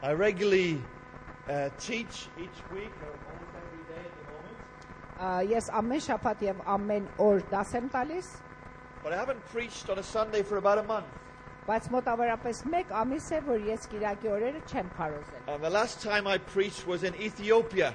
I regularly teach each week or almost every day at the moment. Ես ամեն շաբաթ եւ ամեն օր դաս եմ տալիս, But I haven't preached on a Sunday for about a month. բայց մոտավորապես 1 ամիս է, որ ես Կիրակի օրերը չեմ քարոզել։ And the last time I preached was in Ethiopia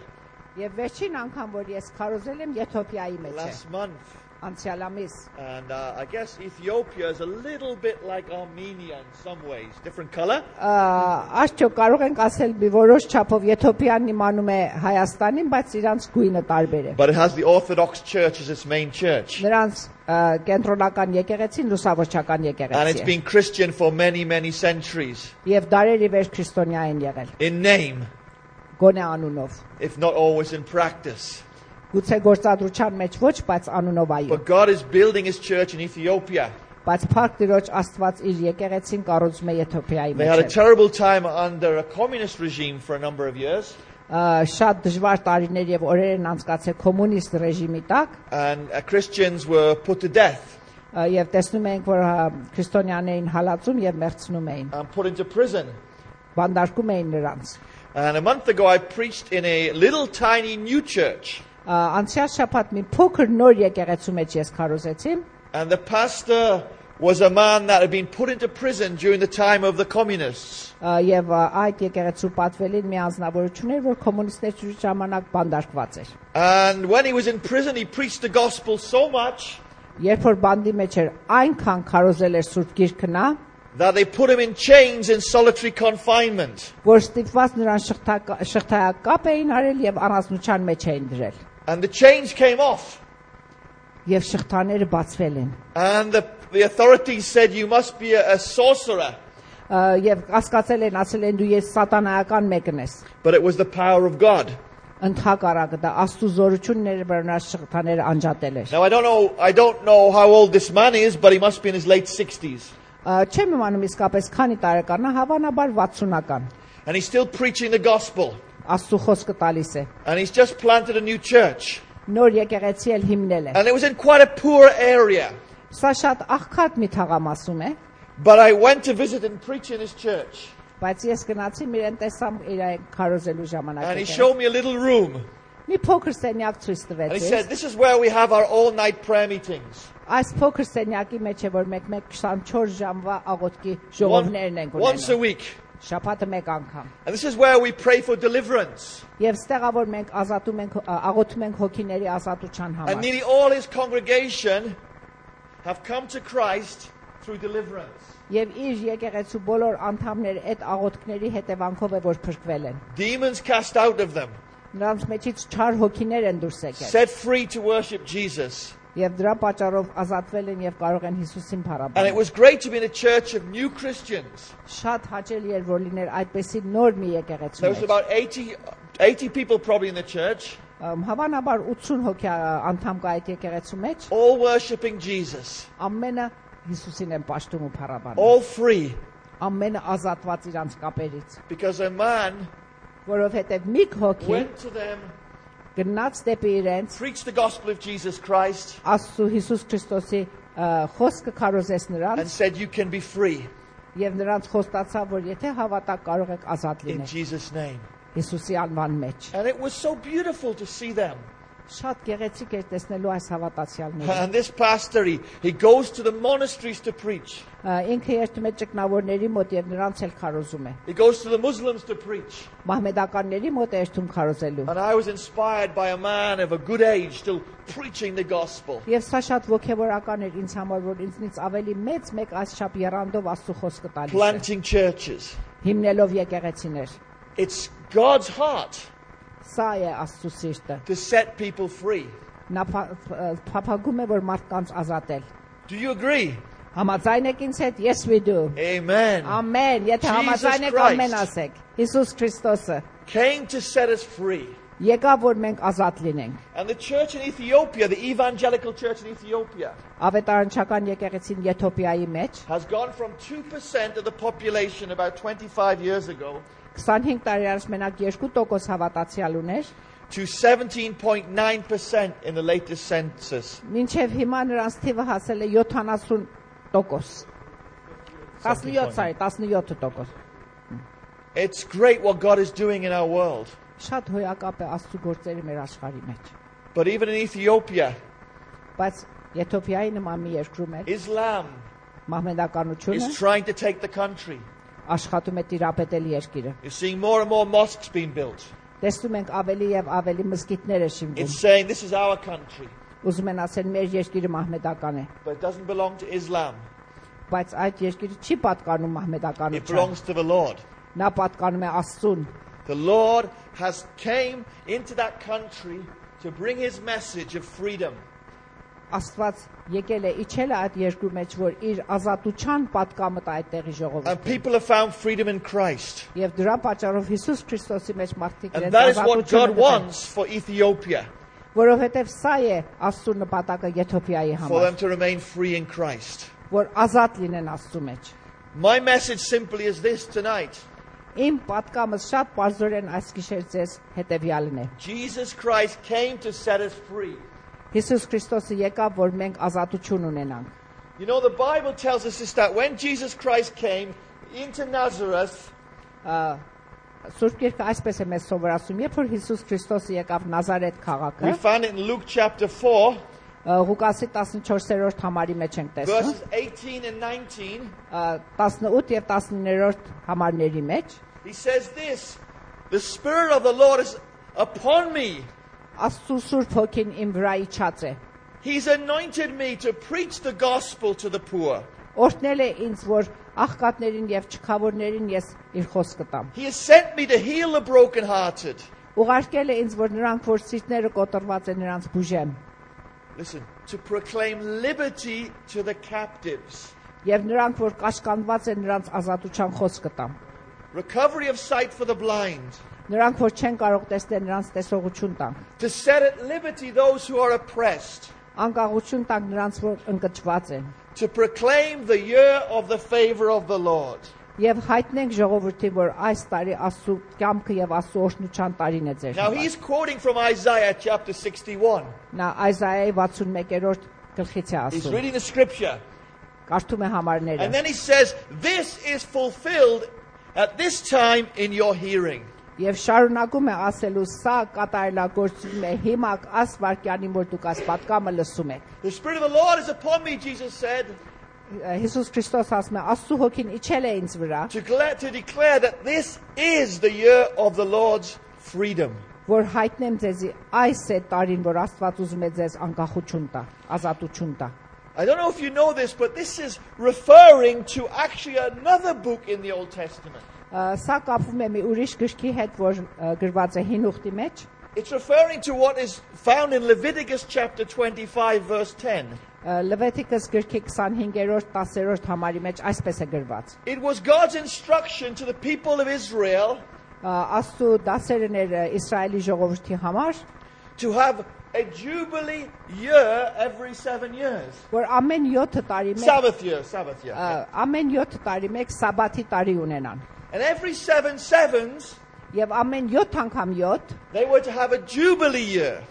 Եվ վերջին անգամ, որ ես քարոզել եմ Եթովպիայի մեջ է, last month. անցյալ ամիս։ And I guess Ethiopia is a little bit like Armenia in some ways. Different color. Արդյոք կարող ենք ասել մի որոշ չափով Եթովպիան նմանում է Հայաստանին, բայց իրանց գույնը տարբեր է։ But it has the Orthodox Church as its main church. Նրանց կենտրոնական եկեղեցին լուսավորչական And it's եկեղեցի է։ been Christian for many, many centuries. Եվ դարերի վեր քրիստոնյա են եղել, In name, գոնե անունով։ if not always in practice. Գուցե գործադրության մեջ ոչ, բայց անունով այո։ But God is building his church in Ethiopia. Բայց Փառք Տիրոջ Աստված իր եկեղեցին կառուցում է Եթովպիայի They had a մեջ։ terrible time under a communist regime for a number of years. Շատ դժվար տարիներ եւ օրեր են անցկացել կոմունիստ ռեժիմի տակ, And Christians were put to death եւ տեսնում ենք, որ քրիստոնյաներին հալածում եւ մեղցնում էին, and put into prison. բանդարկում էին նրանց։ And a month ago I preached in a little tiny new church. Անցյալ շաբաթ մի փոքր նոր եկեղեցու մեջ ես քարոզեցի, And the pastor was a man that had been put into prison during the time of the communists. եւ այդ եկեղեցու պատվելին մի անձնավորություն էր, որ կոմունիստների ժամանակ բանդարկված էր։ And when he was in prison, he preached the gospel so much Երբ որ բանդի մեջ էր, այնքան քարոզել էր Սուրբ Գիրքը նա, that they put him in chains in solitary confinement. որ ստիպված նրան շղթայակապ էին արել եւ առանձնության մեջ էին դրել։ And the chains came off. Եվ շղթաները բացվել են։ And the authorities said, you must be a sorcerer. Եվ կասկածել են, ասել են դու ես սատանայական մեկն ես։ But it was the power of God. Ընդհակառակը դա Աստծո զորությունն էր, որ նա շղթաները անջատել էր։ Now I don't know how old this man is, but he must be in his late 60s. Չեմ իմանում իսկապես քանի տարեկան է, հավանաբար 60-ական։ And he's still preaching the gospel. Աստծո խոսքը տալիս է։ And he's just planted a new church. Նոր եկեղեցի էլ հիմնել է։ And it was in quite a poor area. Սա շատ աղքատ մի թաղամասում է, But I went to visit and preach in his church. բայց ես գնացի իրեն տեսամ իր քարոզելու ժամանակ։ And he showed me a little room. Մի փոքր սենյակ ցույց And he տվեց։ said, this is where we have our all-night prayer meetings. Այս փոքր սենյակի մեջ է, որ մեկ 24 ժամվա աղոթքի ժողովներն են Once a ունենում։ week. Շաբաթը մեկ անգամ։ And this is where we pray for deliverance. Եվ ստեղա որ մենք ազատում ենք, աղոթում ենք հոգիների ազատության And համար։ nearly all his congregation have come to Christ through deliverance. Եվ իր եկեղեցու բոլոր անդամները այդ աղոթքների հետևանքով է որ փրկվել են։ Demons cast out of them. Նրանց մեջից չար հոգիներ են դուրս եկել։ Set free to worship Jesus. Եվ դրա պատճառով ազատվել են եւ կարող են Հիսուսին And it փառաբանել։ was great to be in a church of new Christians. Շատ հաճելի էր որ լիներ այդպեսի նոր մի եկեղեցու There was մեջ։ about 80 people probably in the church, Հավանաբար 80 հոգի անդամ կա այդ եկեղեցու մեջ, all worshiping Jesus. ամենը Հիսուսին են պաշտում ու փառաբանում։ All free. Ամենը ազատված իրանց կապերից, Because a man որովհետեւ մի հոգի went to them, գնաց դեպի իրենց preached the gospel of Jesus Christ, Աստծո Հիսուս Քրիստոսի խոսքը քարոզեց and նրանց said, you can be free եւ նրանց խոստացավ որ եթե հավատաք կարող եք ազատ in լինել Jesus' name. Հիսուսի անվան մեջ։ And it was so beautiful to see them. Շատ գեղեցիկ էր տեսնելու այս հավատացյալները։ And this pastor, he goes to the monasteries to preach. Ինքը երթում է ճգնավորների մոտ եւ նրանց էլ քարոզում է։ He goes to the Muslims to preach. Մահմեդականների մոտ է երթում քարոզելու։ And I was inspired by a man of a good age still preaching the gospel. Եվ սա շատ ոգևորական էր ինձ համար, որ ինձնից ավելի մեծ մեկ այսչափ երանդով Աստծո խոսքը տալիս է։ Planting churches. Հիմնելով եկեղեցիներ։ It's God's heart Սա է Աստծո սիրտը։ to set people free. Նա փափագում է որ մարդկանց ազատել։ Do you agree? Համաձայն եք ինձ հետ? Yes we do։ Amen. Ամեն, եթե Jesus համաձայն եք Christ. ամեն ասեք։ Հիսուս Քրիստոսը Came to set us free. եկավ որ մենք ազատ լինենք։ And the church in Ethiopia, the evangelical church in Ethiopia, Ավետարանչական եկեղեցին Եթովպիայի մեջ has gone from 2% of the population about 25 years ago 25 տարի առաջ մենակ 2% հավատացյալ ուներ, to 17.9% in the latest census. մինչև հիմա նրանց թիվը հասել է 70%։ 17%։ It's great what God is doing in our world. Շատ հոյակապ է Աստծո գործերը մեր աշխարհի մեջ։ But even in Ethiopia, Բայց Եթովպիայի նման մի երկրում է Islam մահմեդականությունը is trying to take the country. աշխատում է տիրապետել երկիրը։ You're seeing more and more mosques being built. Տեսնում ենք ավելի եւ ավելի մզկիթներ է շինվում։ It's saying this is our country, Ուզում են ասել մեր երկիրը մահմեդական է, but it doesn't belong to Islam. բայց այդ երկիրը չի պատկանում It մահմեդականությանը։ belongs to the Lord. Նա պատկանում է Աստծուն։ The Lord has came into that country to bring his message of freedom. Աստված եկել է իջել է այդ երկրի մեջ, որ իր ազատության պատկամը տա այդտեղի And ժողովրդին։ people have found freedom in Christ. Եվ դրա պատճառով Հիսուս Քրիստոսի մեջ մարդիկ And իրենց that is what ազատությունը God գտան, wants for Ethiopia, որովհետև սա է Աստծո նպատակը Եթովպիայի for them համար, to remain free in Christ. որ ազատ լինեն Աստծո մեջ։ My message simply is this tonight. Իմ պատկամս շատ բարձրորեն այս գիշեր ձեզ հետևյալն է։ Jesus Christ came to set us free. Հիսուս Քրիստոսը եկավ, որ մենք ազատություն ունենանք։ You know, the Bible tells us this, that when Jesus Christ came into Nazareth, Սուրբ Գիրքը այսպես է մեզ սովորացնում, երբ որ Հիսուս Քրիստոսը եկավ Նազարեթ we քաղաքը, find it in Luke chapter 4, Ղուկասի 14-րդ համարի մեջ ենք տեսնում, verses 18 and 19. 18 եւ 19-րդ համարների մեջ, He says this, the Spirit of the Lord is upon me. Աստծո Սուրբ Հոգին իմ վրա իջած է։ He's anointed me to preach the gospel to the poor. Օրհնել է ինձ, որ աղքատներին եւ չքավորներին ես իր խոսքը տամ։ He has sent me to heal the brokenhearted. Ուղարկել է ինձ, որ նրանք, որ սիրտները կոտրված են, նրանց բուժեմ, Listen, to proclaim liberty to the captives, եւ նրանք, որ կաշկանդված են, նրանց ազատության խոսքը տամ։ recovery of sight for the blind, Նրանք, որ չեն կարող տեսնել, նրանց տեսողություն տամ։ to set at liberty those who are oppressed, Անկախություն տանք նրանց, որ ընկճված են, to proclaim the year of the favor of the Lord. եւ հայտնենք ժողովրդին, որ այս տարի Աստծո կամքը եւ Աստծո օրհնության տարին է ձեր Now համար։ he's quoting from Isaiah chapter 61. Նա Այզայայի 61-րդ գլխից է He's ասում։ reading the scripture. Կարդում է համարները։ And then he says, this is fulfilled at this time in your hearing. Եվ շարունակում է ասելու, սա կատարելագործվում է հիմա այս վարքյանին, որ դուք այս պատկամը լսում եք։ The Spirit of the Lord is upon me, Jesus said, Հիսուս Քրիստոս ասում է, Աստծո Հոգին իջել է ինձ վրա, to declare that this is the year of the Lord's freedom. որ հայտնեմ ձեզի այս է տարին, որ Աստված ուզում է ձեզ անկախություն տա, ազատություն տա։ I don't know if you know this, but this is referring to actually another book in the Old Testament. Սա կապվում է մի ուրիշ գրքի հետ, որ գրված է Հին ուխտի մեջ։ It's referring to what is found in Leviticus chapter 25, verse 10. Լևետիկոս գրքի 25-րդ 10-րդ համարի մեջ այսպես է գրված։ It was God's instruction to the people of Israel Աստծո դասերն էր Իսրայելի ժողովրդի համար, to have a jubilee year every 7 years. որ ամեն 7 տարի մեկ Sabbath year. ամեն 7 տարի մեկ սաբաթի տարի ունենան։ And every 7 sevens, Եվ ամեն 7 անգամ 7 they were to have a jubilee year.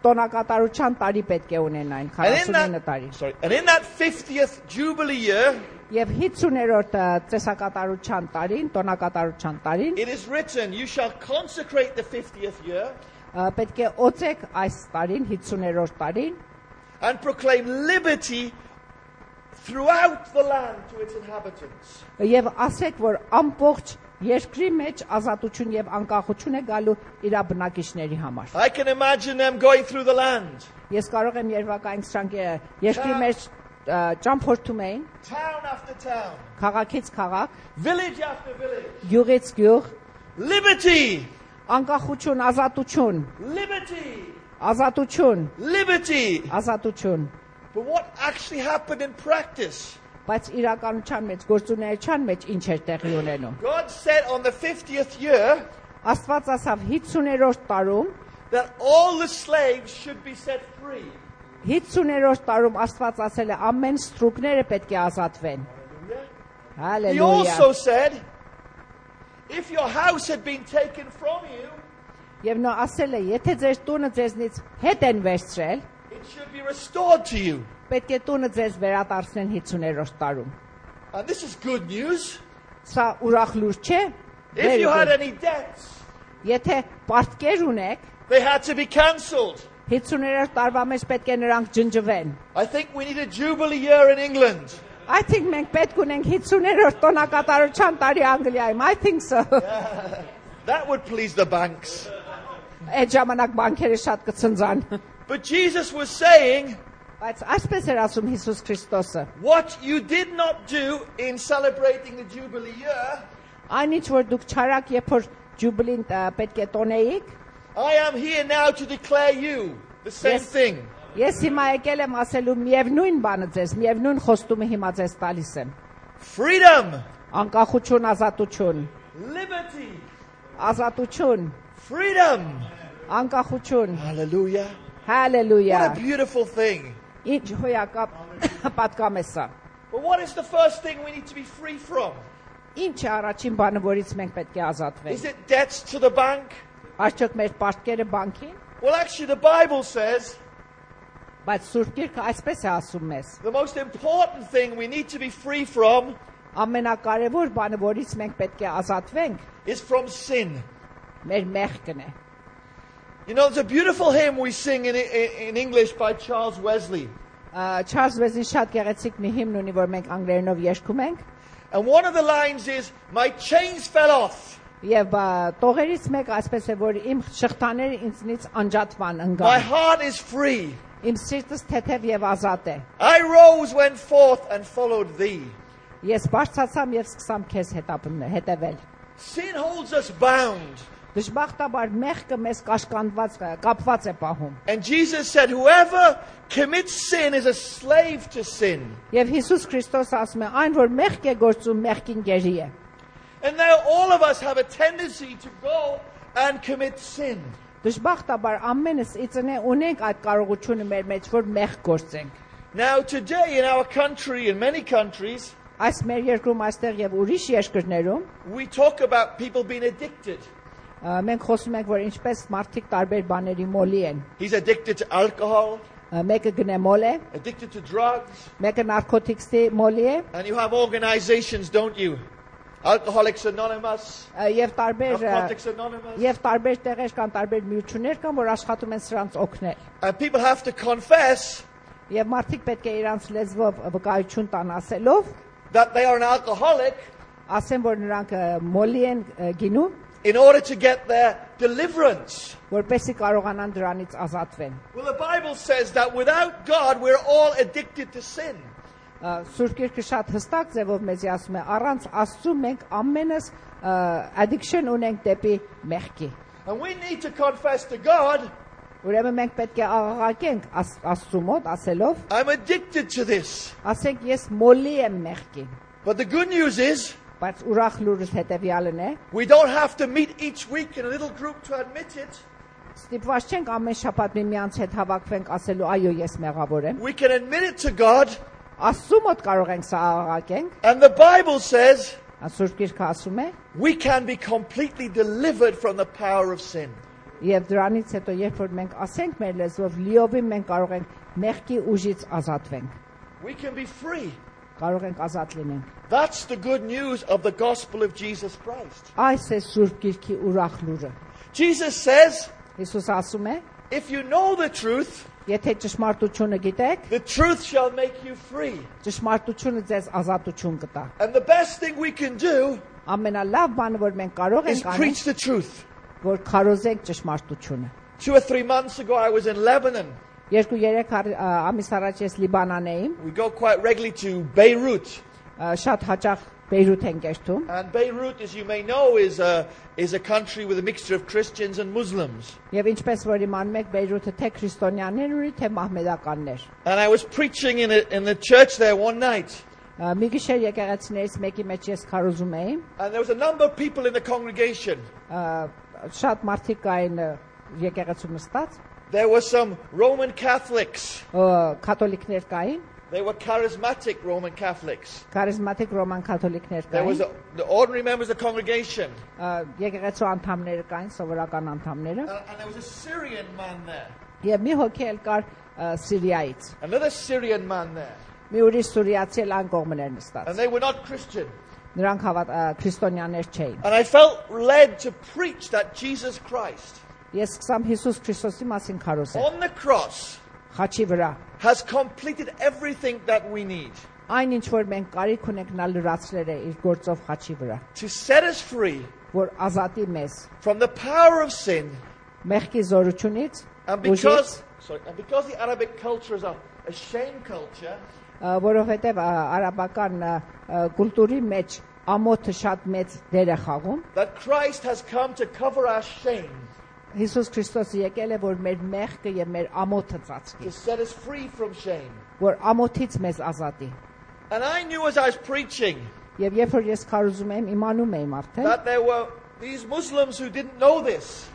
տոնակատարության տարի պետք է ունենային, And 49 տարի։ in that 50th jubilee year, Եվ 50-րդ ծեսակատարության տարին, տոնակատարության տարին, it is written, you shall consecrate the 50th year պետք է օծեք այս տարին, 50-րդ տարին, and proclaim liberty throughout the land to its inhabitants. եւ ասեք, որ ամբողջ երկրի մեջ ազատություն եւ անկախություն է գալու իր բնակիչների համար։ I can imagine them going through the land, Ես կարող եմ երևակայել սրանք երկրի մեջ ճամփորդում էին, town after town, քաղաքից քաղաք, village after village. գյուղից գյուղ, Liberty! անկախություն, ազատություն, Liberty! ազատություն, Liberty! ազատություն։ But what actually happened in practice? Բայց իրականության մեջ, գործունեության մեջ ինչ էր տեղի ունենում։ God said on the 50th year Աստված ասավ 50-րդ տարում, that all the slaves should be set free. 50-րդ տարում Աստված ասել է ամեն ստրուկները պետք է ազատվեն։ He Հալելույա։ also said, if your house had been taken from you, Եվ նա ասել է, եթե ձեր տունը ձեզնից հետ են վերցրել, it should be restored to you. պետք է տունը ձեզ վերադարձնեն 50-րդ տարում։ And this is good news. Սա ուրախ լուր չէ։ If you had any debts, Եթե պարտքեր ունեք, they had to be cancelled. 50-րդ տարվա մեջ պետք է նրանք ջնջվեն։ I think we need a jubilee year in England. I think մենք պետք ունենք 50-րդ տոնակատարության տարի Անգլիայում։ I think so։ That would please the banks. Այդ ժամանակ բանկերը շատ կցնցան։ But Jesus was saying, Բայց այսպես էր ասում Հիսուս Քրիստոսը. what you did not do in celebrating the jubilee year, Այնինչ որ դուք չարակ երբ որ ջուբլին պետք է տոնեիք, I am here now to declare you the same Yes. thing. ես հիմա եկել եմ ասելու միևնույն բանը ձեզ, միևնույն խոստումը հիմա ձեզ տալիս եմ։ Freedom, Անկախություն, ազատություն, liberty, ազատություն, freedom. անկախություն, Hallelujah. What a հալելույա։ beautiful thing. Ինչ հոյակապ պատկամ է սա։ But what is the first thing we need to be free from? Ինչ է առաջին բանը, որից մենք պետք է ազատվենք։ Is it debts to the bank? Արդյոք մեր պարտքերը բանկին, Well, actually, the Bible says բայց Սուրբ Գիրքը այսպես է ասում մեզ. the most important thing we need to be free from Ամենակարևոր բանը, որից մենք պետք է ազատվենք, is from sin. մեր մեղքն է։ You know, there's a beautiful hymn we sing in English by Charles Wesley. Չարլզ Վեզլին շատ գեղեցիկ մի հիմն ունի, որ մենք անգլերենով երգում ենք, And one of the lines is, my chains fell off. եւ տողերից մեկը այսպես է, որ իմ շղթաները ինձնից անջատվան My ընկան։ heart is free. Իմ սիրտս թեթև եւ ազատ է։ I rose, went forth, and followed thee. Ես բարձրացամ եւ սկսամ քեզ հետևել։ Sin holds us bound. Դժբախտաբար մեղքը մեզ կապված է պահում։ And Jesus said, whoever commits sin is a slave to sin. Եվ Հիսուս Քրիստոսը ասում է, այն որ մեղք է գործում, մեղքին գերի է։ And now all of us have a tendency to go and commit sin. Դժբախտաբար ամենս իծնե ունենք այդ կարողությունը մեր մեջ, որ մեղք գործենք։ Now today in our country, in many countries, Այս մեր երկրում, այստեղ եւ ուրիշ երկրներում we talk about people being addicted. մենք խոսում ենք, որ ինչպես մարդիկ տարբեր բաների մոլի են։ He's addicted to alcohol, Մեկը գնեմոլ է, addicted to drugs. մեկը նարկոտիկսի մոլի է, And you have organizations, don't you? Alcoholics Anonymous, եւ Narcotics Anonymous. տարբեր տեղեր կան, տարբեր միություններ կան, որ աշխատում են սրանց օգնել։ And people have to confess Եվ մարդիկ պետք է իրանց լեզվով վկայություն տան ասելով, that they are an alcoholic ասեն, որ նրանք մոլի են գինում, in order to get their deliverance. որպեսզի կարողանան դրանից ազատվեն։ Well, the Bible says that without God, we're all addicted to sin. Սուրբ Գիրքը շատ հստակ ձևով մեզ ասում է, առանց Աստծու մենք ամենս addiction ունենք դեպի մեղքի։ And we need to confess to God, Ուրեմն մենք պետք է աղաղակենք Աստծու մոտ ասելով, I'm addicted to this. ասենք ես մոլի եմ մեղքին։ But the good news is, Բայց ուրախ լուրս հետևյալն է, we don't have to meet each week in a little group to admit it. ստիպված չենք ամեն շաբաթ միմյանց հետ հավաքվենք ասելու, այո, ես մեղավոր եմ։ We can admit it to God. Աստծու մոտ կարող ենք սա աղաղակենք։ And the Bible says Սուրբ Գիրքը ասում է, we can be completely delivered from the power of sin. եւ դրանից հետո երբ որ մենք ասենք մեր լեզվով, լիովին մենք կարող ենք մեղքի ուժից ազատվենք։ We can be free. Կարող ենք ազատ լինենք։ That's the good news of the gospel of Jesus Christ. Այս է Սուրբ Գիրքի ուրախ լուրը։ Jesus says, Հիսուս ասում է, if you know the truth, եթե ճշմարտությունը գիտեք, the truth shall make you free. ճշմարտությունը ձեզ ազատություն կտա։ And the best thing we can do Ամենալավ բանը, որ մենք կարող is ենք անել, preach the truth. որ քարոզենք ճշմարտությունը։ 2 or 3 months ago, I was in Lebanon. 2-3 ամիս առաջ ես Լիբանան էի, We go quite regularly to Beirut. շատ հաճախ Բեյրութ ենք երթում։ And Beirut, as you may know, is a country with a mixture of Christians and Muslims. Եվ ինչպես որ իմանում եք, Բեյրութը թե քրիստոնյաներ ունի, թե մահմեդականներ։ And I was preaching in the church there one night. Մի գիշեր եկեղեցիներից մեկի մեջ ես քարոզում էի, And there was a number of people in the congregation. շատ մարդիկ կային եկեղեցու նստած, There were some Roman Catholics. կաթոլիկներ կային, They were charismatic Roman Catholics. քարիզմատիկ ռոման կաթոլիկներ There was կային, the ordinary members of the congregation. եկեղեցու անդամներ կային, սովորական անդամները, And there was a Syrian man there. եւ մի հոգի էլ կար Սիրիայից։ Another Syrian man there. Մի ուրիշ սուրիացի էլ ան կողմն էր նստած։ And they were not Christian. Նրանք քրիստոնյաներ չէին։ And I felt led to preach that Jesus Christ Ես սկսամ Հիսուս Քրիստոսի մասին քարոզել։ on the cross Խաչի վրա has completed everything that we need այն ինչ որ մենք կարիք ունենք նա լրացրել է իր գործով խաչի վրա, to set us free որ ազատի մեզ from the power of sin. մեղքի զորությունից, And ուժից, because the Arabic culture is a shame culture, որովհետև արաբական կուլտուրի մեջ ամոթը շատ մեծ դեր է խաղում, that Christ has come to cover our shame, Հիսուս Քրիստոսը եկել է որ մեր մեղքը եւ մեր ամոթը to ծածկի, set us free from shame. որ ամոթից մեզ azատի։ And I knew as I was preaching Եվ երբ որ ես քարոզում եմ, իմանում եմ արդեն, that there were these Muslims who didn't know this.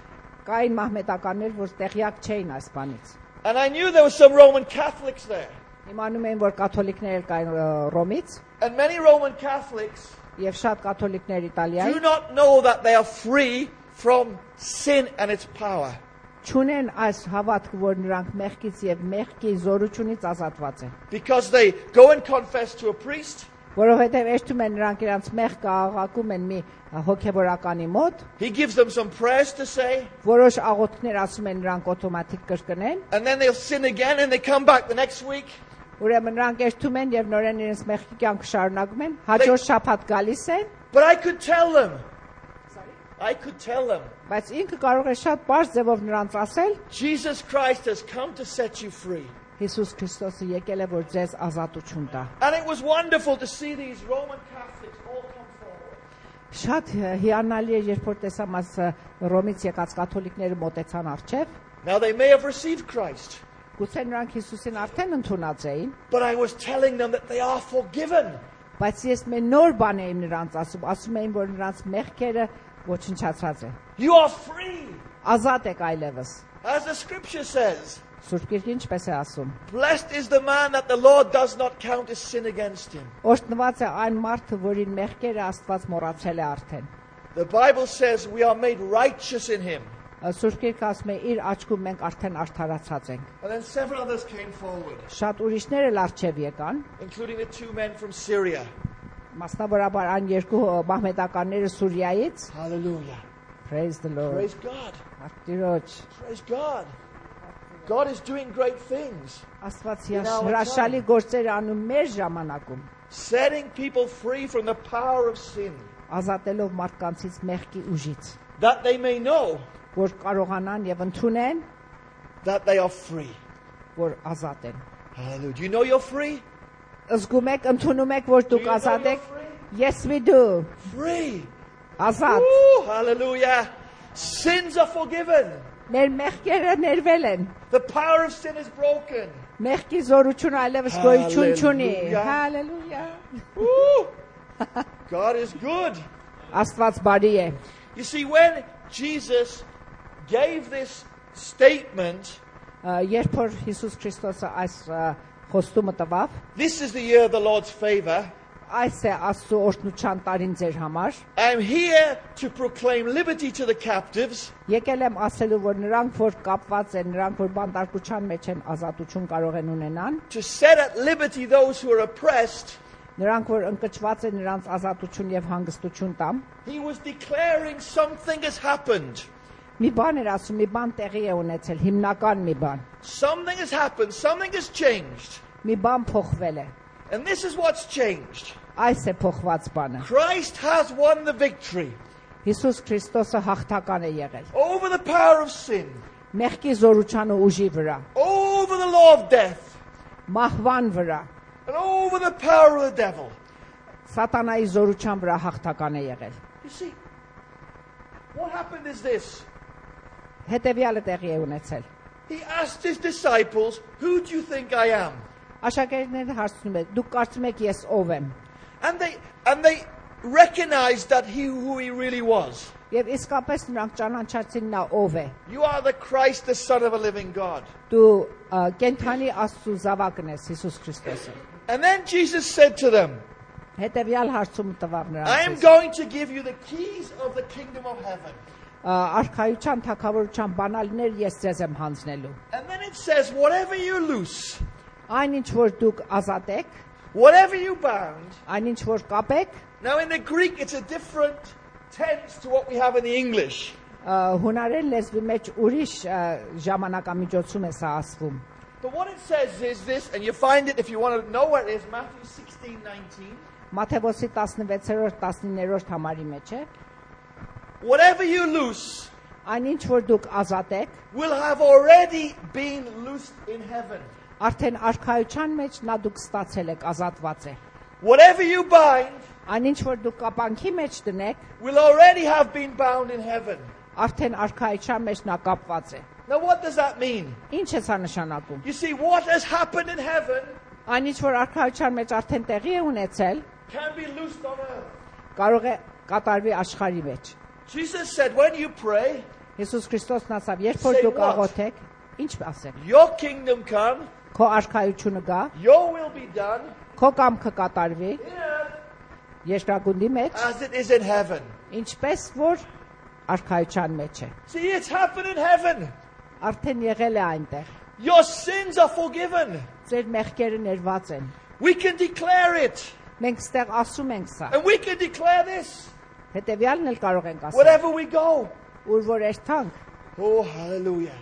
կային մահմեդականներ, որ տեղյակ չէին այս բանից։ And I knew there were some Roman Catholics there. Իմանում եմ, որ կաթոլիկներ կային Ռոմից And many Roman Catholics եւ շատ կաթոլիկներ do Իտալիայի not know that they are free from sin and its power. չունեն այս հավատքը, որ նրանք մեղքից եւ մեղքի զորությունից ազատված են։ Because they go and confess to a priest. Որովհետեւ էշտում են նրանք իրancs մեղքը աղաղակում են մի հոգեվորականի մոտ, He gives them some prayers to say. որոշ աղոթքներ ասում են նրանք օտոմատիկ կրկնեն, And then they'll sin again and they come back the next week. ուրեմն նրանք էշտում են եւ նորեն իրենց մեղքի կյանքը շարունակում են, հաջորդ շաբաթ գալիս են, But I could tell them. բայց ինքը կարող է շատ բարձ ձևով նրանց ասել, Jesus Christ has come to set you free. Հիսուս Քրիստոսը եկել է որ ձեզ ազատություն տա։ And it was wonderful to see these Roman Catholics all come forward. Շատ հիանալի է, երբ որ տեսամ այս Ռոմից եկած կաթոլիկները մոտեցան առջև, Now they may have received Christ, գուցե նրանք Հիսուսին արդեն ընդունած էին, but I was telling them that they are forgiven. բայց ես մի նոր բան եմ նրանց ասում էին, որ նրանց մեղքերը ոչնչացած են։ You are free. Ազատ եք այլևս։ As the scripture says, Սուրբ Գիրքը ինչպես է ասում։ blessed is the man that the Lord does not count his sin against him. Օրհնված է այն մարդը, որին մեղքերը Աստված մոռացել է արդեն։ The Bible says we are made righteous in him. Սուրբ Գիրքը ասում է իր աչքում մենք արդեն արդարացած ենք։ And then several others came forward, Շատ ուրիշներ էլ առջև եկան, including the two men from Syria. մասնավորաբար այն երկու մահմեդականները Սուրիայից։ Hallelujah. Praise the Lord։ Praise God. Տիրոջ, Praise God. God is doing great things. Աստված հրաշալի գործեր անում մեր ժամանակում, Setting people free from the power of sin. ազատելով մարդկանցից մեղքի ուժից, That they may know որ կարողանան եւ ընդունեն, that they are free. որ ազատ են։ Hallelujah. Do you know you're free? Զգում եք, ընդունում եք, որ Do դուք you know ազատ you're եք։ free? Yes we do։ Free. Ազատ։ Woo, hallelujah. Sins are forgiven. Մեր մեղքերը ներվել են։ The power of sin is broken. Մեղքի զորությունը այլևս գոյություն չունի։ Hallelujah. Հալելույա։ Woo. God is good. Աստված բարի է։ You see, when Jesus gave this statement, Երբ որ Հիսուս Քրիստոսը այս խոստումը տվավ, this is the year of the Lord's favor. այս է Աստծո օրհնության տարին ձեր համար, I'm here to proclaim liberty to the captives եկել եմ ասելու, որ նրանք, որ կապված են, նրանք, որ բանտարկության մեջ են, ազատություն կարող են ունենան, to set at liberty those who are oppressed. նրանք, որ ընկճված են, նրանց ազատություն եւ հանգստություն տամ։ He was declaring something has happened. Մի բան էր ասում, մի բան տեղի է ունեցել, հիմնական մի բան։ Something has happened. Something has changed. Մի բան փոխվել է։ And this is what's changed. Այս է փոխված բանը։ Christ has won the victory Հիսուս Քրիստոսը հաղթական է եղել։ over the power of sin, Մեղքի զորության ու ուժի վրա, over the law of death, մահվան վրա, and over the power of the devil. սատանայի զորության վրա հաղթական է եղել։ You see, what happened is this. Հետևյալը տեղի է ունեցել։ He asked his disciples, who do you think I am? Աշակերտները հարցնում են, դուք կարծում եք ես ով եմ։ And they recognized that who he really was. Եվ իսկապես նրանք ճանաչեցին նա ով է։ You are the Christ, the Son of a living God. Դու կենթանի Աստծո զավակն ես, Հիսուս Քրիստոսը։ And then Jesus said to them, Հետևյալ հարցում տվավ I am նրանց։ going to give you the keys of the kingdom of heaven. Արքայության, թագավորության բանալիներ ես ձեզ եմ հանձնելու։ And then it says, whatever you loose, Այն ինչ որ դուք ազատ եք, whatever you bound, այն ինչ որ կապեք, Now in the Greek it's a different tense to what we have in the English. Հունարեն լեզվի մեջ ուրիշ ժամանակամիջոցում է սա ասվում։ But what it says is this, and you find it if you want to know where it is, Matthew 16:19. Մատթեոսի 16-րդ 19-րդ համարի մեջ է։ Whatever you loose Այնինչ որ դուք ազատեք, will have already been loosed in heaven. արդեն արքայության մեջ նա դուք ստացել եք, ազատված է։ Whatever you bind Այնինչ որ դուք կապանքի մեջ դնեք, will already have been bound in heaven. արդեն արքայության մեջ նա կապված է։ Now what does that mean? Ինչ է սա նշանակում։ You see, what has happened in heaven Այնինչ որ արքայության մեջ արդեն տեղի է ունեցել, can be loosed on earth. կարող է կատարվի աշխարհի մեջ։ Jesus said, when you pray, Հիսուս Քրիստոսն ասավ, երբ որ Say դուք what? աղոթեք, ինչ ասեք։ your kingdom come, Քո արքայությունը գա, your will be done քո կամքը կատարվի in earth երկրագնդի մեջ, as it is in heaven. ինչպես որ արքայության մեջ է։ See, it's happened in heaven. Արդեն եղել է այնտեղ։ Your sins are forgiven. Ձեր մեղքերը ներված են։ We can declare it. Մենք ստեղ ասում ենք սա։ And we can declare this Հետևյալն էլ կարող ենք ասել։ wherever we go. Ուր որ երթանք։ Oh, hallelujah.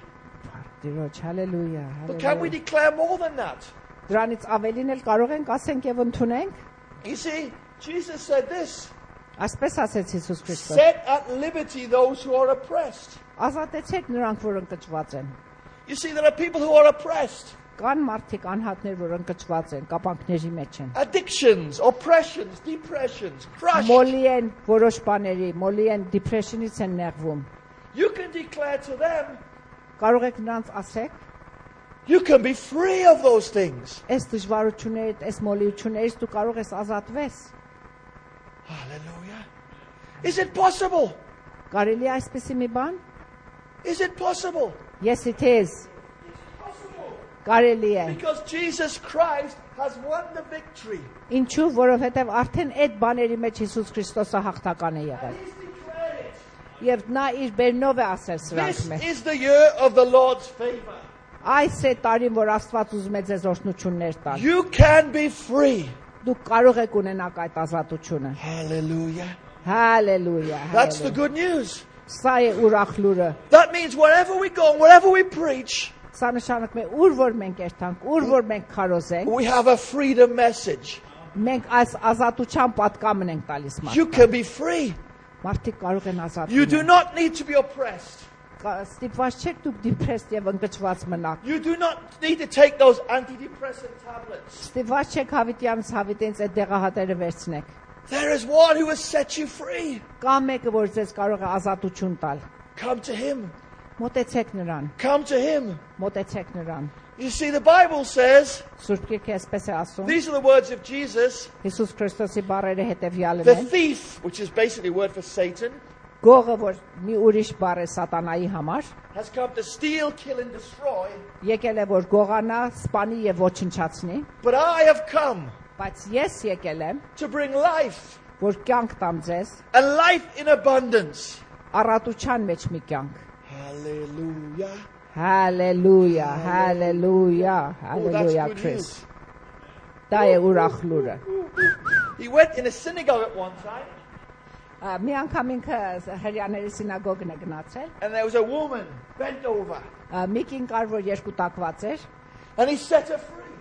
Տիրոջ, հալելույա, But can we հալելույա։ declare more than that? Դրանից ավելին էլ կարող ենք ասենք եւ ընդունենք։ You see, Jesus said this, Այսպես ասեց Հիսուս Քրիստոս. set at liberty those who are oppressed. Ազատեցեք նրանք, որ ընկճված են։ You see, there are people who are oppressed. Կան մարդիկ անհատներ, որ ընկճված են, կապանքների մեջ են։ Addictions, oppressions, depressions, crushed. Մոլի են որոշ բաների, մոլի են depression-ից են նեղվում։ You can declare to them, Կարող եք նրանց ասեք, you can be free of those things. այս դժվարություններից, այս մոլիություններից դու կարող ես ազատվես։ Hallelujah. Is it possible? Կարելի է այսպեսի մի բան։ Is it possible? Yes, it is. Possible. Կարելի է։ Because Jesus Christ has won the victory. Ինչու, որովհետև արդեն այդ բաների մեջ Հիսուս Քրիստոսը հաղթական է եղել։ He's declared it. Եվ նա իր բերնով է ասել սրանք This մեջ։ is the year of the Lord's favor. Այս է տարին, որ Աստված ուզում է ձեզ օրհնություններ տալ։ You can be free. Դուք կարող եք ունենալ այդ ազատությունը։ Hallelujah. Հալելույա։ That's the good news. Սա է ուրախ լուրը։ That means wherever we go and wherever we preach, Սա նշանակում է ուր որ մենք երթանք, ուր որ մենք քարոզենք, we have a freedom message. մենք այս ազատության պատկամն ենք տալիս You մարդկանց։ can be free. Մարդիկ կարող են ազատ You do լինել։ not need to be oppressed. Ստիպված չեք դուք դիպրեստ եւ ընկճված մնաք։ You do not need to take those antidepressant tablets. Ստիպված չեք հավիտյանից հավիտենից այդ դեղահատերը վերցնեք։ There is one who has set you free. Կա մեկը, որ ձեզ կարող է ազատություն տալ։ Come to him. Մոտեցեք նրան, Come to him. մոտեցեք նրան։ You see, the Bible says, Սուրբ Գիրքը այսպես է ասում։ these are the words of Jesus, Հիսուս Քրիստոսի բառերը հետևյալն the են։ thief, which is basically a word for Satan, Գողը, որ մի ուրիշ բառ է սատանայի համար, has come to steal, kill, and destroy. եկել է որ գողանա, սպանի եւ ոչնչացնի, But I have come բայց ես եկել եմ, to bring life, որ կյանք տամ ձեզ, and life in abundance. առատության մեջ մի կյանք։ Hallelujah. Հալելույա, հալելույա, Oh, that's հալելույա good Քրիս։ news. Դա է ուրախ լուրը։ He went in a synagogue at one time, Մի անգամ ինքը հрьяաների սինագոգն է գնացել, and there was a woman bent over, մի կին կար, որ երկու տակված էր, and he set her free.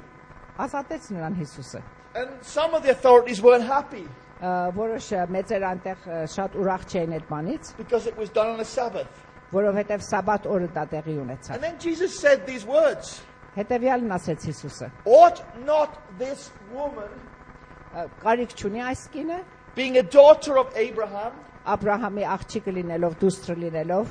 ազատեց նրան Հիսուսը։ And some of the authorities weren't happy Որոշ մեծեր անտեղ շատ ուրախ չէին այդ բանից, because it was done on a Sabbath. որովհետև սաբաթ օրը դա տեղի ունեցավ։ And then Jesus said these words, Հետևյալն ասեց Հիսուսը. ought not this woman, Կարիք չունի այս կինը, being a daughter of Abraham, Աբրահամի աղջիկը լինելով, դուստր լինելով,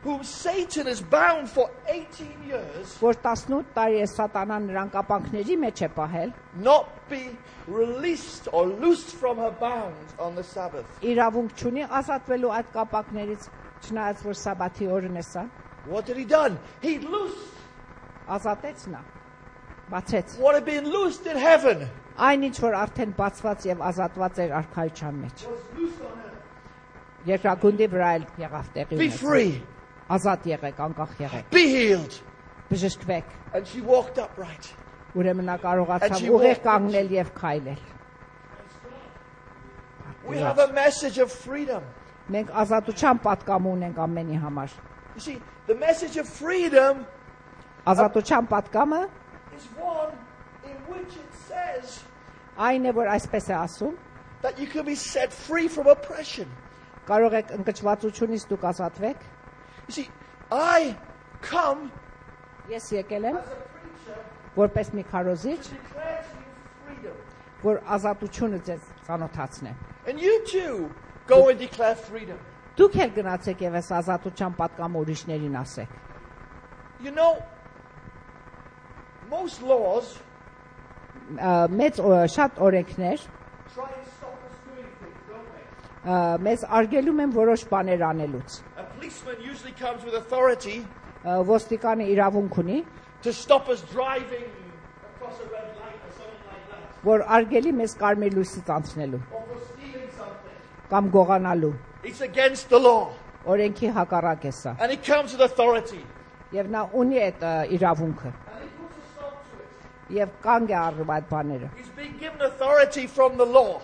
whom Satan has bound for 18 years, որ 18 տարի է սատանան նրան կապանքների մեջ է պահել, not be released or loosed from her bounds on the Sabbath? իրավունք չունի ազատվելու այդ կապանքներից, չնայած որ սաբաթի օրն է սա, What had he done? He loosed ազատեց նա, բացեց։ what had been loosed in heaven. Այն ինչ որ արդեն բացված եւ ազատված էր արքայության մեջ։ Was loosed on earth. Երկրագնդի վրա էլ եղավ տեղի Be ունեցավ։ free, Ազատ եղեք, անկախ եղեք, be healed. բժշկվեք։ And she walked upright. Ուրեմն նա կարողացավ Աչի ուղիղ ողջ։ կանգնել եւ քայլել։ We have a message of freedom. Մենք ազատության պատկամ ունենք ամենի համար։ You see, the message of freedom Ազատության պատկամը is one in which it says այն է, որ այսպես է ասում, that you can be set free from oppression. կարող եք ընկճվածությունից դուք ազատվեք։ You see, I come Ես եկել եմ as a preacher որպես մի քարոզիչ, to declare to you freedom. որ ազատությունը ձեզ ծանոթացնեմ։ And you too go and declare freedom. Դուք էլ գնացեք եւ այս ազատության պատկամը ուրիշներին ասեք։ You know, most laws Մեծ շատ օրենքներ try and stop us doing things, don't they? մեզ արգելում են որոշ բաներ անելուց։ A policeman usually comes with authority Ոստիկանը իրավունք ունի, to stop us driving across a red light or something like that, որ արգելի մեզ կարմիր լույսից անցնելու or for stealing something. կամ գողանալու։ It's against the law. Օրենքի հակառակ է սա։ And he comes with authority. Եվ նա ունի այդ իրավունքը And he puts a stop to it. եւ կանգ է առնում այդ բաները։ He's been given authority from the law.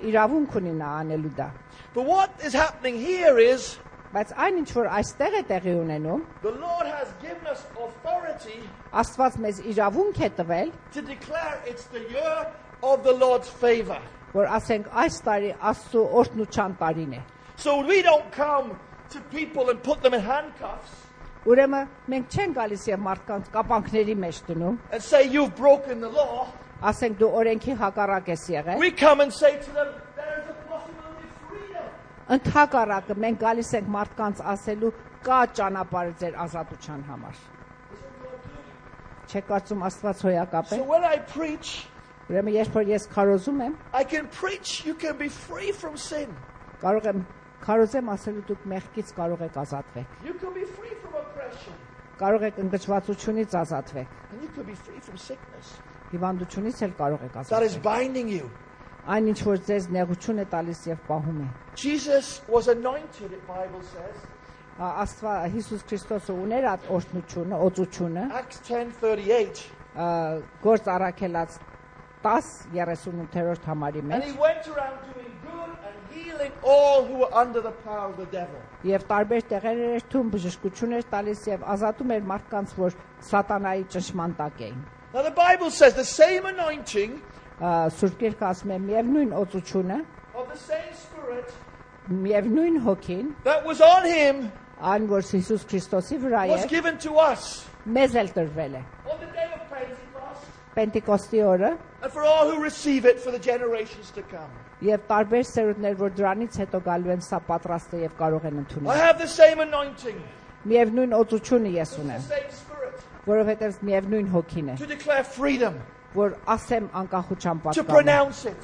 Իրավունք ունի նա անելու դա։ But what is happening here is Բայց այն ինչ որ այստեղ է տեղի ունենում, the Lord has given us authority Աստված մեզ իրավունք է տվել, to declare it's the year of the Lord's favor. որ ասենք այս տարի Աստծո օրհնության տարին է։ So we don't come to people and put them in handcuffs Ուրեմն մենք չենք գալիս եւ մարդկանց կապանքների մեջ դնում, and say you've broken the law. ասենք դու օրենքի հակառակ ես եղել։ We come and say to them, there is a possibility of freedom. Ընդհակառակը մենք գալիս ենք մարդկանց ասելու կա ճանապարհ ձեր ազատության համար։ Չեք կարծում Աստված հոյակապ է։ So when I preach, Ուրեմն երբ որ ես քարոզում եմ, I can preach you can be free from sin. կարող եմ քարոզեմ ասելու դուք մեղքից կարող եք ազատվեք։ You can be free from oppression. Կարող եք ընկճվածությունից ազատվեք։ And you can be free from sickness. Հիվանդությունից էլ կարող եք That is ազատվել։ binding you. Այն ինչ որ ձեզ նեղություն է տալիս եւ պահում է։ Jesus was anointed, the Bible says. Աստված Հիսուս Քրիստոսը ուներ այդ օրհնությունը, օծությունը, Acts 10:38. գործ առաքելած 10:38 համարի And մեջ he went around doing good and healing all who were under the power of the devil. եւ տարբեր տեղեր էր թում բժշկություններ տալիս եւ ազատում էր մարդկանց, որ սատանայի ճնշման տակ էին։ Now the Bible says the same anointing Սուրբ Գիրքը ասում է միևնույն օծությունը, of the same Spirit միևնույն հոգին, that was on him այն որ Հիսուս Քրիստոսի վրա was է, given to us մեզ էլ տրվել է։ on the day of Pentecost Պենտեկոստի օրը and for all who receive it for the generations to come. եւ տարբեր սերունդներ, որ դրանից հետո գալու են, սա պատրաստ է եւ կարող են I ընդունել։ have the same anointing, Միևնույն օծությունը ես the ունեմ, same Spirit որովհետեւ միևնույն հոգին է, to declare freedom, որ ասեմ անկախության to պատկանը, pronounce it.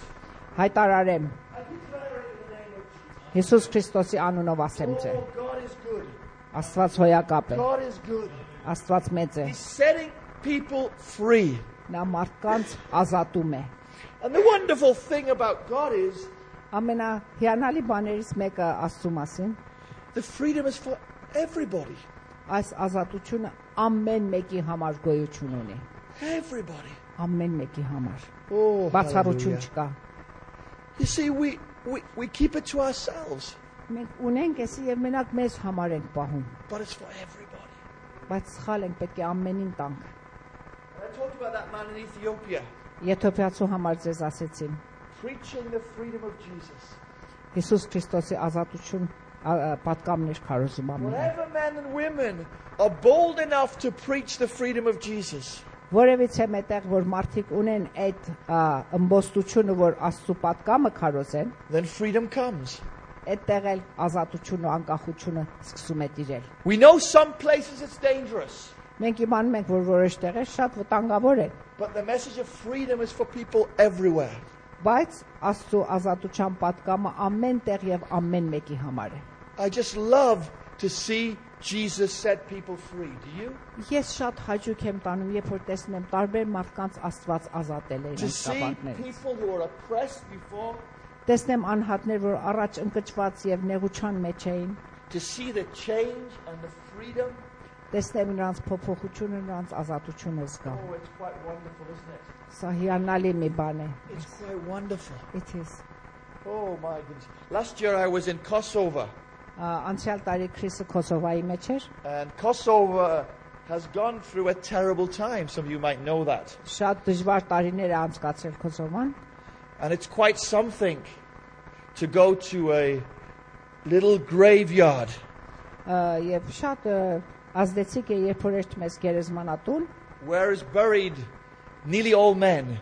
հայտարարեմ I declare it in the name of Jesus. Հիսուս Քրիստոսի անունով ասեմ ձեզ։ Oh, God is good. Աստված հոյակապ է, God is good. Աստված մեծ է, He's setting people free. նա մարդկանց ազատում է։ And the wonderful thing about God is Ամենահիանալի բաներից մեկը Աստծո մասին, the freedom is for everybody. այս ազատությունը ամեն մեկի համար գոյություն ունի, Everybody. ամեն մեկի համար։ Oh, Բացառություն hallelujah. չկա։ You see, we keep it to ourselves, Մենք ունենք էսի եւ մենակ մեզ համար ենք պահում, but it's for everybody. բայց սխալ ենք, պետք է ամենին տանք։ And I talked about that man in Ethiopia, Եթովպիացու համար ձեզ ասեցին, preaching the freedom of Jesus. Հիսուս Քրիստոսի ազատություն պատկամներ քարոզում ամեն։ Whatever men and women are bold enough to preach the freedom of Jesus, Որևիցե մետեղ որ մարդիկ ունեն այդ ըմբոստությունը, որ Աստծո պատկամը քարոզեն, then freedom comes. այդտեղ էլ ազատությունը ու անկախությունը սկսում է տիրել։ We know some places it's dangerous, Մենք իմանում ենք, որ որոշ տեղեր շատ վտանգավոր են, but the message of freedom is for people everywhere. բայց Աստծո ազատության պատկամը ամեն տեղ եւ ամեն մեկի համար է։ I just love to see Jesus set people free. Do you? Ես շատ հաճույք եմ տանում, երբ որ տեսնում եմ տարբեր մարդկանց Աստված ազատել է To իրենց see կապանքներից։ people who are oppressed before, Տեսնեմ անհատներ, որ առաջ ընկճված եւ նեղության մեջ էին, to see the change and the freedom. տեսնեմ նրանց փոփոխությունը, նրանց ազատությունը զգամ։ Oh, it's quite wonderful, isn't it? Սա հիանալի մի բան է։ It's quite wonderful. It is։ Oh my goodness. Last year I was in Kosovo. Անցյալ տարի Քրիսը Կոսովայի մեջ էր, And Kosovo has gone through a terrible time. Some of you might know that. շատ դժվար տարիներ է անցկացրել Կոսովան, And it's quite something to go to a little graveyard եւ շատ ազդեցիկ է, երբ որ երթում ես գերեզմանատուն, where is buried nearly all men.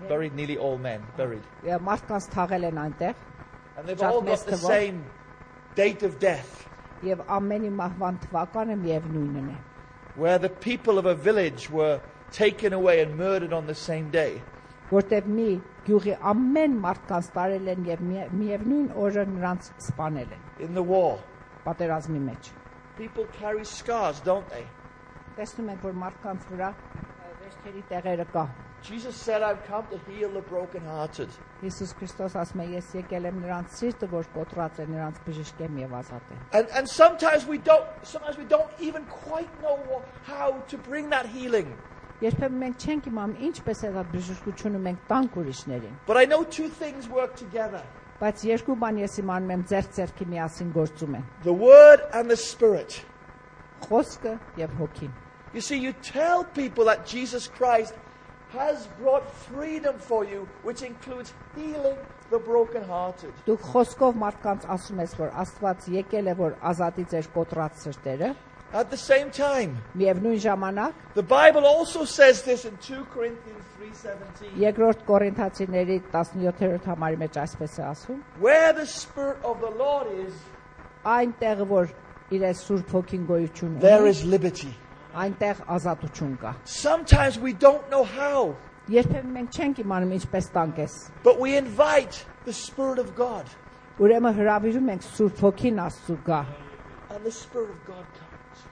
Buried nearly all men. Buried. մարդկանց թաղել են այնտեղ And they've all got the same date of death. եւ ամենի մահվան թվականը միևնույնն է, Where the people of a village were taken away and murdered on the same day. որտեղ մի գյուղի ամեն մարդկանց տարել են եւ միևնույն օրը նրանց սպանել են In the war. պատերազմի մեջ։ People carry scars, don't they? Տեսնում ենք, որ մարդկանց վրա վերջերի տեղերը կա։ Jesus said, I've come to heal the brokenhearted. Հիսուս Քրիստոս ասում է, ես եկել եմ նրանց սիրտը, որ կոտրած է, նրանց բժշկեմ եւ ազատեմ։ And sometimes we don't even quite know how to bring that healing. Երբեմն մենք չենք իմանում ինչպես է այդ բժշկությունը մենք տանք ուրիշներին։ But I know two things work together. Բայց երկու բան ես իմանում եմ ձեռք-ձեռքի միասին գործում են։ The word and the spirit. Խոսքը եւ հոգին։ You see, you tell people that Jesus Christ has brought freedom for you, which includes healing the brokenhearted. Դուք խոսքով մարդկանց ասում ես, որ Աստված եկել է, որ ազատի ձեր կոտրած սրտերը։ At the same time, Միևնույն ժամանակ the Bible also says this in 2 Corinthians 3:17. Երկրորդ Կորինթացիների 17-րդ համարի մեջ այսպես է ասում. Where the Spirit of the Lord is, Այնտեղ որ իր Սուրբ Հոգին գոյություն there ունի, is liberty. այնտեղ ազատություն կա։ Sometimes we don't know how, Երբեմն մենք չենք իմանում ինչպես տանք ես։ but we invite the Spirit of God, Ուրեմն հրավիրում ենք Սուրբ Հոգին Աստծու գա։ and the Spirit of God comes.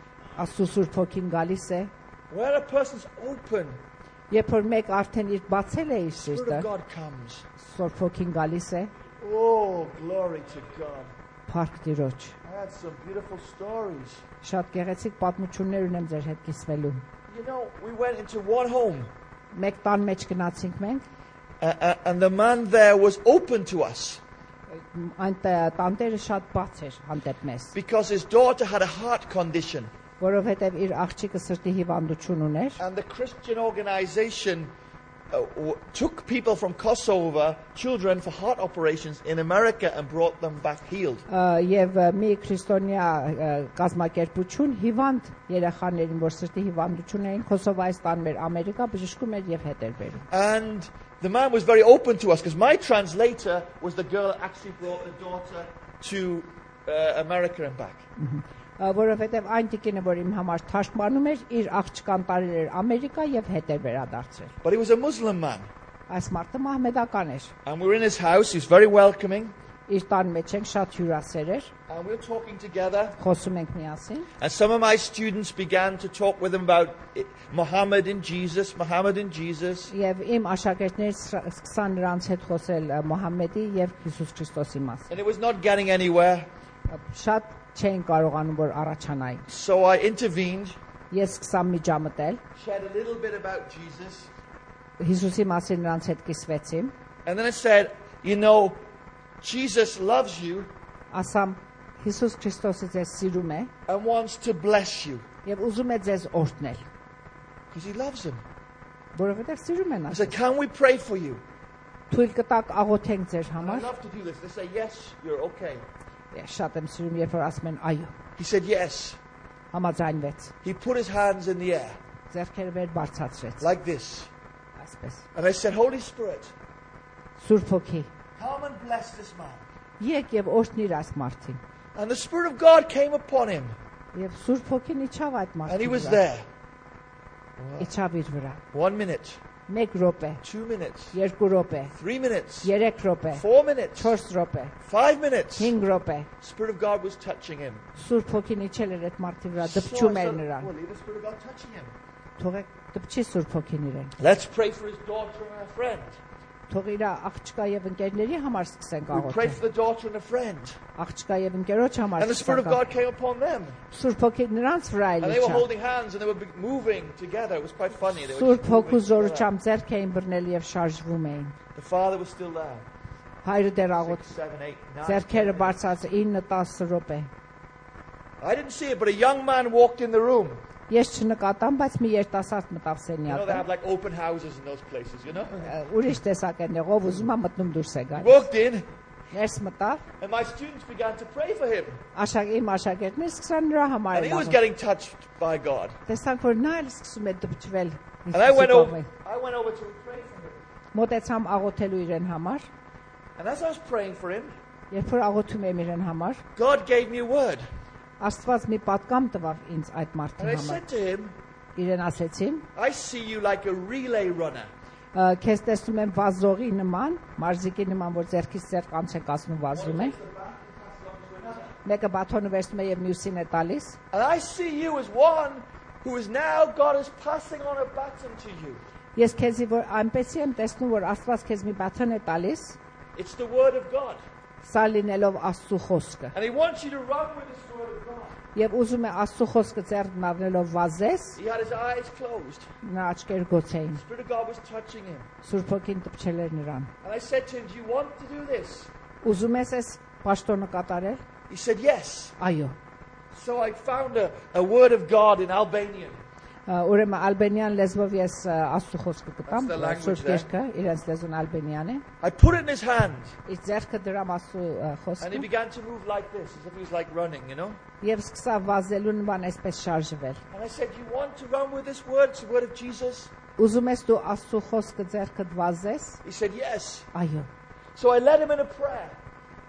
Աստծու Սուրբ Հոգին գալիս է, Where a person's open, երբ որ մեկ արդեն իր բացել է իր the Spirit սիրտը, of God comes. Սուրբ Հոգին գալիս է, Oh, glory to God. Փառք Տիրոջ։ I had some beautiful stories. Շատ գեղեցիկ պատմություններ ունեմ ձեր հետ կիսվելու։ You know, we went into one home, Մեկ տան մեջ գնացինք մենք, and the man there was open to us այնտեղ տանտերը շատ բաց էր հանդեպ մեզ, because his daughter had a heart condition. որովհետև իր աղջիկը սրտի հիվանդություն ուներ, And the Christian organization took people from Kosovo, children for heart operations in America, and brought them back healed. եւ մի քրիստոնյա կազմակերպություն հիվանդ երեխաներին, որ սրտի հիվանդություն էին, Կոսովայից տանում էր Ամերիկա, բժշկում էր եւ հետ էր բերում։ And the man was very open to us because my translator was the girl that actually brought the daughter to America and back. Որովհետև այն տիկինը, որ իմ համար թարգմանում էր, իր աղջկան տարել էր Ամերիկա եւ հետ էր վերադարձել։ But he was a Muslim man. Այս մարդը մահմեդական էր։ And we were in his house. He was very welcoming. Իր տան մեջ ենք շատ հյուրասեր էր, And we were talking together. խոսում ենք միասին։ And some of my students began to talk with him about Muhammad and Jesus, Muhammad and Jesus. Եվ իմ աշակերտներից սկսան նրանց հետ խոսել Մոհամեդի եւ Հիսուս Քրիստոսի մասին։ And it was not getting anywhere. Շատ չէին կարողանում որ առաջանային։ So I intervened, Ես սկսա միջամտել, shared a little bit about Jesus. Հիսուսի մասին նրանց հետ կիսվեցի, And then I said, you know, Jesus loves you ասամ Հիսուս Քրիստոսը ձեզ սիրում է and wants to bless you եւ ուզում է ձեզ օրհնել, because he loves him. որովհետեւ սիրում են I ասում։ said, can we pray for you? Թույլ կտակ աղոթենք ձեր And I համար։ love to do this. They say, yes, you're okay. Ես շատ եմ սիրում, երբ որ ասում են այո, He said, yes. համաձայնվեց, He put his hands in the air ձեռքերը վեր բարձրացրեց, like this. այսպես։ And I said, Holy Spirit, Սուրբ Հոգի, come and bless this man. եկ եւ օրհնիր այս մարդին։ And the Spirit of God came upon him. Եվ Սուրբ Հոգին իջավ այդ And he մարդու was վրա, there. իջավ իր վրա։ 1 minute, 1 րոպե, 2 minutes, 2 րոպե, 3 minutes, 3 րոպե, 4 minutes, 4 րոպե, 5 minutes. 5 րոպե։ Spirit of God was touching him. Սուրբ Հոգին իջել էր այդ մարդի վրա, So I դպչում էր said, նրան։ well, leave the Spirit of God touching him. Թողեք դպչի Սուրբ Հոգին իրեն։ Let's pray for his daughter and her friend. Թող իր աղջկա եւ ընկերների համար սկսենք We prayed աղոթել։ for the daughter and a friend. Աղջկա եւ ընկերոջ համար And the Spirit of սկսենք։ God came upon them. Սուրբ Հոգին նրանց վրա And they were իջավ։ holding hands and they were moving together. It was quite funny. They were Սուրբ just Հոգու moving together. զորությամբ ձեռք էին բռնել եւ շարժվում էին։ The father was still there. Հայրը դեռ աղոթ 6, 7, 8, 9. ձեռքերը բարձած 9-10 րոպե։ I didn't see it, but a young man walked in the room. Ես չնկատամ, բայց մի երիտասարդ մտավ You know, they սենյակը։ have like open houses in those places, you know? Ուրիշ տեսակ են եղող, ուզում է մտնում դուրս է He գալիս։ walked in, Ներս մտավ, and my students began to pray for him. իմ աշակերտները սկսան նրա համար And he was աղոթել։ getting touched by God. Տեսանք, որ նա էլ սկսում է դպչվել։ And I went over to pray for him. Մոտեցամ աղոթելու իրեն համար, And as I was praying for him, երբ որ աղոթում եմ իրեն համար, God gave me a word. Աստված մի պատկամ տվավ ինձ այդ And մարդի I համար։ said to him, Իրեն ասեցին, I see you like a relay runner. քեզ տեսնում եմ վազողի նման, մարզիկի նման, որ ձեռքից ձեռք անց են կացնում վազում է։ Մեկը բաթոնը վերցնում է եւ մյուսին է տալիս։ And I see you as one who is now God is passing on a baton to you. Ես քեզի որ այնպեսի եմ տեսնում, որ Աստված քեզ մի բաթոն է տալիս, It's the word of God. սա լինելով Աստծո խոսքը։ And he wants you to run with this word of God. Եվ ուզում է Աստծո խոսքը ձեռքն առնելով վազես, He had his eyes closed. նրա աչքերը գոց էին։ The Spirit of God was touching him. Սուրբ Հոգին տպչել էր նրան։ And I said to him, do you want to do this? Ուզում ես այս պաշտոնը կատարել։ He said, yes. Այո։ So I found a word of God in Albanian. Ուրեմն ալբանյան լեզվով ես Աստծո խոսքը գտամ, That's the language Սուրբ there. Գիրքը, իրենց լեզուն ալբանյան է։ I put it in his hand. Իր ձեռքը դրամ Աստծո And he խոսքը began to move like this, as if he was like running, you know. եւ սկսա վազելու նման այսպես շարժվել։ And I said, you want to run with this word? It's the word of Jesus. Ուզում ես դու Աստծո խոսքը ձեռքդ վազես։ He said, yes. Այո։ So I led him in a prayer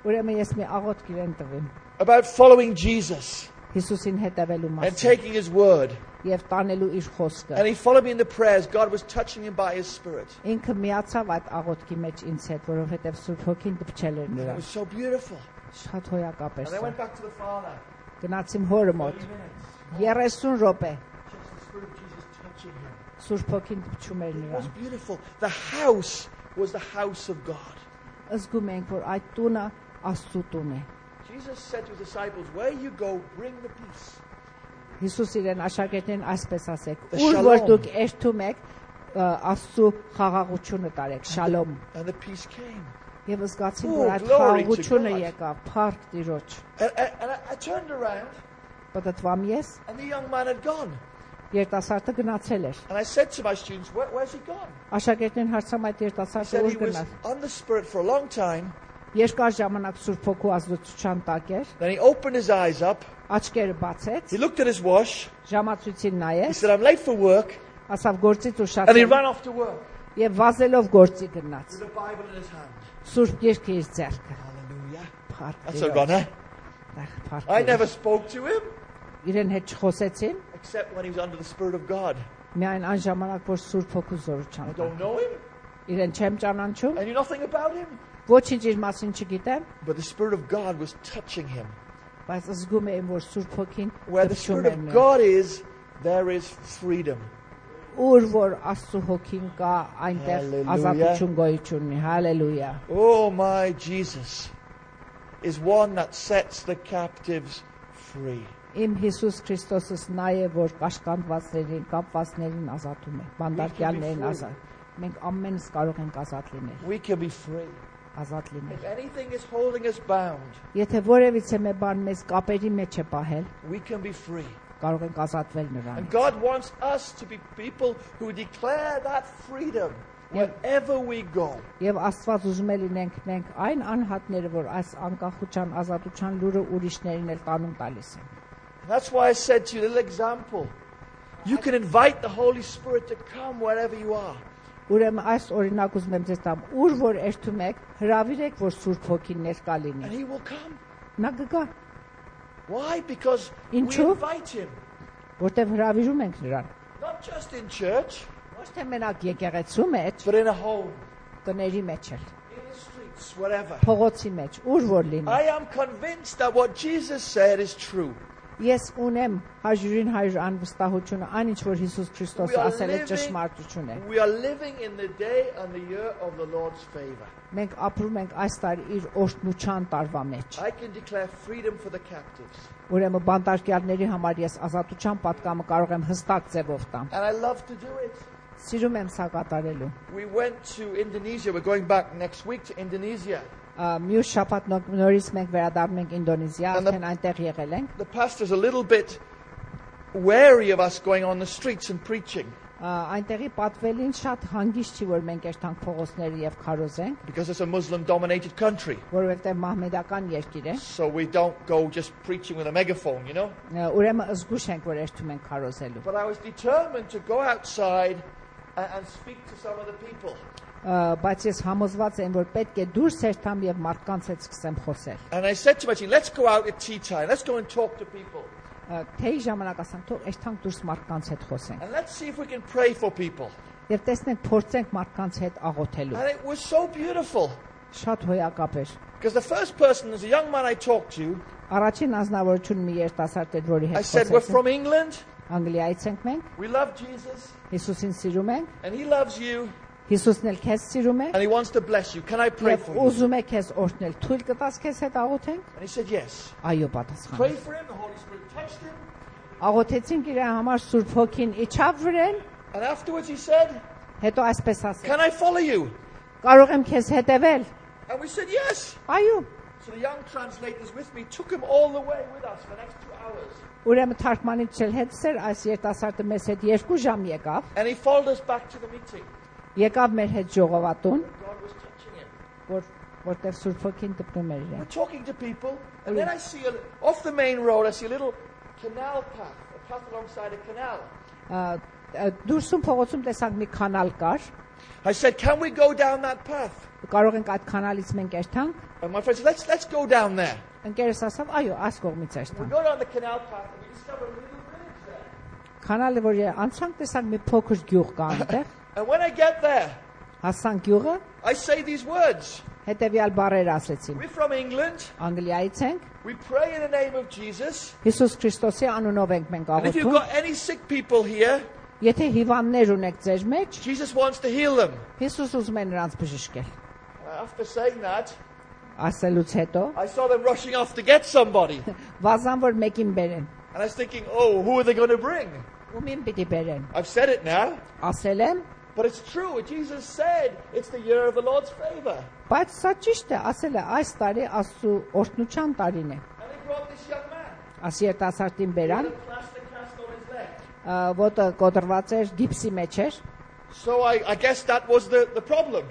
Ուրեմն ես մի աղոթք իրեն տվեմ about following Jesus Հիսուսին հետևելու and մասին taking his word. եւ տանելու իր խոսքը։ And he followed me in the prayers. God was touching him by his Spirit. Ինքը միացավ այդ աղոթքի մեջ ինձ հետ, որովհետեւ Սուրբ Հոգին տպչել էր And it նրան։ was so beautiful. Շատ հոյակապ էր And I սա։ went back to the Father. Գնացիմ հորը 30 մոտ minutes. 30 րոպե Just the Spirit of Jesus touching him. Սուրբ Հոգին տպչում էր It was նրան։ beautiful. The house was the house of God. Զգում ենք, որ այդ տունը Աստծո տուն է։ Jesus said to his disciples, where you go, bring the peace. Հիսուս իրեն աշակերտներին այսպես ասեք. The Ուր shalom. որ դուք երթում եք, Աստծո խաղաղությունը տարեք, շալոմ։ And the peace came. Եվ զգացին, Oh, որ այդ glory to խաղաղությունը God. եկավ, փառք Տիրոջ։ And I turned around, Պատտվամ ես, and the young man had gone. երիտասարդը գնացել էր։ And I said to my students, where's he gone? Աշակերտներին հարցամ այդ He երիտասարդը said he ուր was գնաց։ on the Spirit for a long time. Երկար ժամանակ Սուրբ Հոգու ազդեցության տակ էր, Then he opened his eyes up. աչքերը բացեց, He looked at his watch. ժամացույցին He նայեց, said, I'm late for work. ասավ գործից And he ուշացել ran off to work եւ վազելով գործի գնաց։ with a Bible in his hand. Սուրբ Գիրքը իր ձեռքը։ Hallelujah. Փառք That's a Տիրոջ։ runner. Փառք I Տիրոջ։ never spoke to him Իրեն հետ չխոսեցին, except when he was under the Spirit of God. միայն այն ժամանակ, որ Սուրբ Հոգու I զորությամբ։ don't know him. Իրեն չեմ ճանաչում, I knew nothing about him. ոչինչ իր մասին չգիտեմ, But the Spirit of God was touching him. բայց զգում եմ, որ Սուրբ Հոգին Where the տպչում Spirit է of նրան։ God is, there is freedom. Ուր որ Աստծո Հոգին կա, այնտեղ Hallelujah. ազատություն գոյություն ունի։ Հալելույա։ Oh, my Jesus is one that sets the captives free. Իմ Հիսուս Քրիստոսս նա է, որ կաշկանդվածներին, կապվածներին ազատում է, բանդարկյալներին ազատ։ Մենք ամենս կարող ենք ազատ լինել, We can be free. ազատ լինել։ If anything is holding us bound, Եթե որևիցե մի բան մեզ կապերի մեջ է պահել, we can be free. կարող ենք ազատվել նրան։ And God wants us to be people who declare that freedom wherever we go. Եվ Աստված ուզում է լինենք մենք այն անհատները, որ այս անկախության, ազատության լուրը ուրիշներին էլ տանում տալիս են։ And that's why I said to you, a little example. You can invite the Holy Spirit to come wherever you are. Ուրեմն այս օրինակ ուզում եմ ձեզ տամ, ուր որ երթում եք, հրավիրեք, որ Սուրբ Հոգին ներկա And լինի։ He will come. Նա կգա, Why? Because we Ինչու? invite Him. որտեղ հրավիրում ենք նրան։ Not just in church, Ոչ թե մենակ եկեղեցու մեջ, but in a home, տների մեջ էլ, in the streets, wherever. փողոցի մեջ, ուր որ լինի։ I am convinced that what Jesus said is true. Ես ունեմ 100% անվստահությունը, այն ինչ որ Հիսուս We Քրիստոսը are ասել է living- ճշմարտություն է։ We are living in the day and the year of the Lord's favor. Մենք ապրում ենք այս տարի իր օրհնության տարվա մեջ։ I can declare freedom for the captives. Ուրեմն բանտարկյալների համար ես ազատության պատկամը կարող եմ հստակ ձևով տամ։ And I love to do it. Սիրում եմ սա կատարելու։ We went to Indonesia. We're going back next week to Indonesia. Մյուս շաբաթ նորից մենք վերադառնում ենք Ինդոնեզիա, And the- արդեն այնտեղ եղել ենք։ The pastor's a little bit wary of us going on the streets and preaching Այնտեղի պատվելին շատ հանգիստ չի, որ մենք երթանք փողոցները եւ քարոզենք, because it's a Muslim-dominated country. որովհետեւ մահմեդական երկիր է։ So we don't go just preaching with a megaphone, you know. Ուրեմն զգուշ ենք, որ երթում ենք քարոզելու։ But I was determined to go outside and speak to some of the people. Բայց ես համոզված եմ, որ պետք է դուրս երթամ եւ մարդկանց հետ սկսեմ խոսել։ And I said to my team, let's go out at tea time. Let's go and talk to people. Թեյ ժամանակ ասեմ, թող երթանք դուրս մարդկանց հետ խոսենք։ And let's see if we can pray for people. Եվ տեսնենք, փորձենք մարդկանց հետ աղոթելու։ And it was so beautiful. Շատ հոյակապ էր։ Because the first person, as a young man I talked to, Առաջին անձնավորություն մի երիտասարդ էր, որի I հետ said, we're խոսեցինք։ from England. Անգլիայից ենք մենք, We love Jesus. Հիսուսին սիրում ենք, And he loves you. Հիսուսն էլ քեզ սիրում է, And he wants to bless you. Can I pray եւ for you? ուզում է քեզ օրհնել։ Թույլ կտաս քեզ հետ աղոթենք։ And he said, yes. Այո, պատասխան։ Pray for him. The Holy Spirit touched him. Աղոթեցինք իր համար Սուրբ Հոգին իջավ վրան, And afterwards he said, հետո այսպես ասեց. can I follow you? Կարող եմ քեզ հետևել։ And we said, yes. Այո։ So the young translators with me took him all the way with us for the next 2 hours. Ուրեմն թարգմանիչ էլ հետսեր այս երիտասարդը մեզ հետ 2 ժամ եկավ, And he followed us back to the meeting. եկավ մեր հետ ժողովատուն, God was touching him. որտեղ Սուրբ Հոգին տպնում էր We're իրեն։ talking to people, and then I see, off the main road, I see a little canal path, a path alongside a canal. Դուրսում փողոցում տեսանք մի կանալ կար, I said, can we go down that path? կարող ենք այդ կանալից մենք երթանք։ And my friend said, let's go down there. Ընկերս ասավ, այո, այս կողմից We երթանք։ go down the canal path, and we discover a little village there. Կանալը որ անցանք տեսանք մի փոքր գյուղ կա այնտեղ, And when I get there, հասանք գյուղը, I say these words. հետևյալ բառերը ասեցին. We're from England. Անգլիայից ենք, We pray in the name of Jesus. Հիսուս Քրիստոսի անունով ենք մենք And if you've աղոթում։ got any sick people here, Եթե հիվանդներ ունեք ձեր մեջ, Jesus wants to heal them. Հիսուս ուզում է նրանց բժշկել։ After saying that, Ասելուց հետո I saw them rushing off to get somebody. վազան որ մեկին բերեն։ And I was thinking, oh, who are they going to bring? Ումին պիտի բերեն։ I've said it now, Ասել եմ, but it's true. Jesus said it's the year of the Lord's favor. բայց սա ճիշտ է, ասել է, այս տարի Աստծո օրհնության տարին է։ And they brought this young man. Աս երիտասարդին He բերան, had a plaster cast on his leg. ոտը կոտրված էր, գիպսի մեջ էր։ So I guess that was the problem.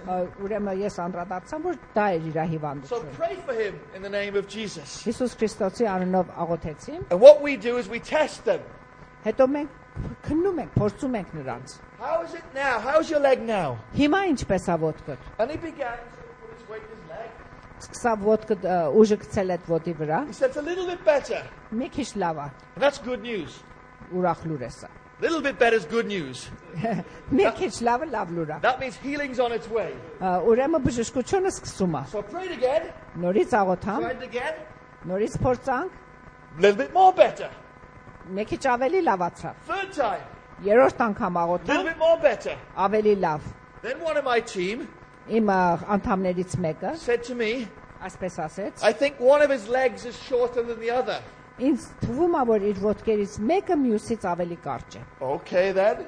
Ուրեմն ես անդրադարձամ, որ դա էր իր So հիվանդությունը։ pray for him in the name of Jesus. Հիսուս Քրիստոսի անունով աղոթեցին, And what we do is we test them. հետո մենք քննում ենք, փորձում ենք նրանց։ How is it now? How's your leg now? Հիմա ինչպես է ոտքդ։ And he began to put his weight in his leg. Սկսավ ոտքդ ուժը գցել այդ ոտի վրա, He said it's a little bit better. մի քիչ լավ է, And that's good news. ուրախ լուր է սա։ A little bit better is good news. Մի քիչ լավը լավ լուր է։ That means healing's on its way. Ուրեմն բժշկությունը սկսում է։ So I prayed again, Նորից աղոթամ, tried again, նորից փորձանք, a little bit more better. մի քիչ ավելի լավացավ։ Third time, Երրորդ անգամ a little աղոթամ, bit more better. ավելի լավ։ Then one of my team Իմ անդամներից մեկը said to me, այսպես ասեց. I think one of his legs is shorter than the other. Ինձ թվում է, որ իր ոտքերից մեկը մյուսից ավելի կարճ է։ Okay then.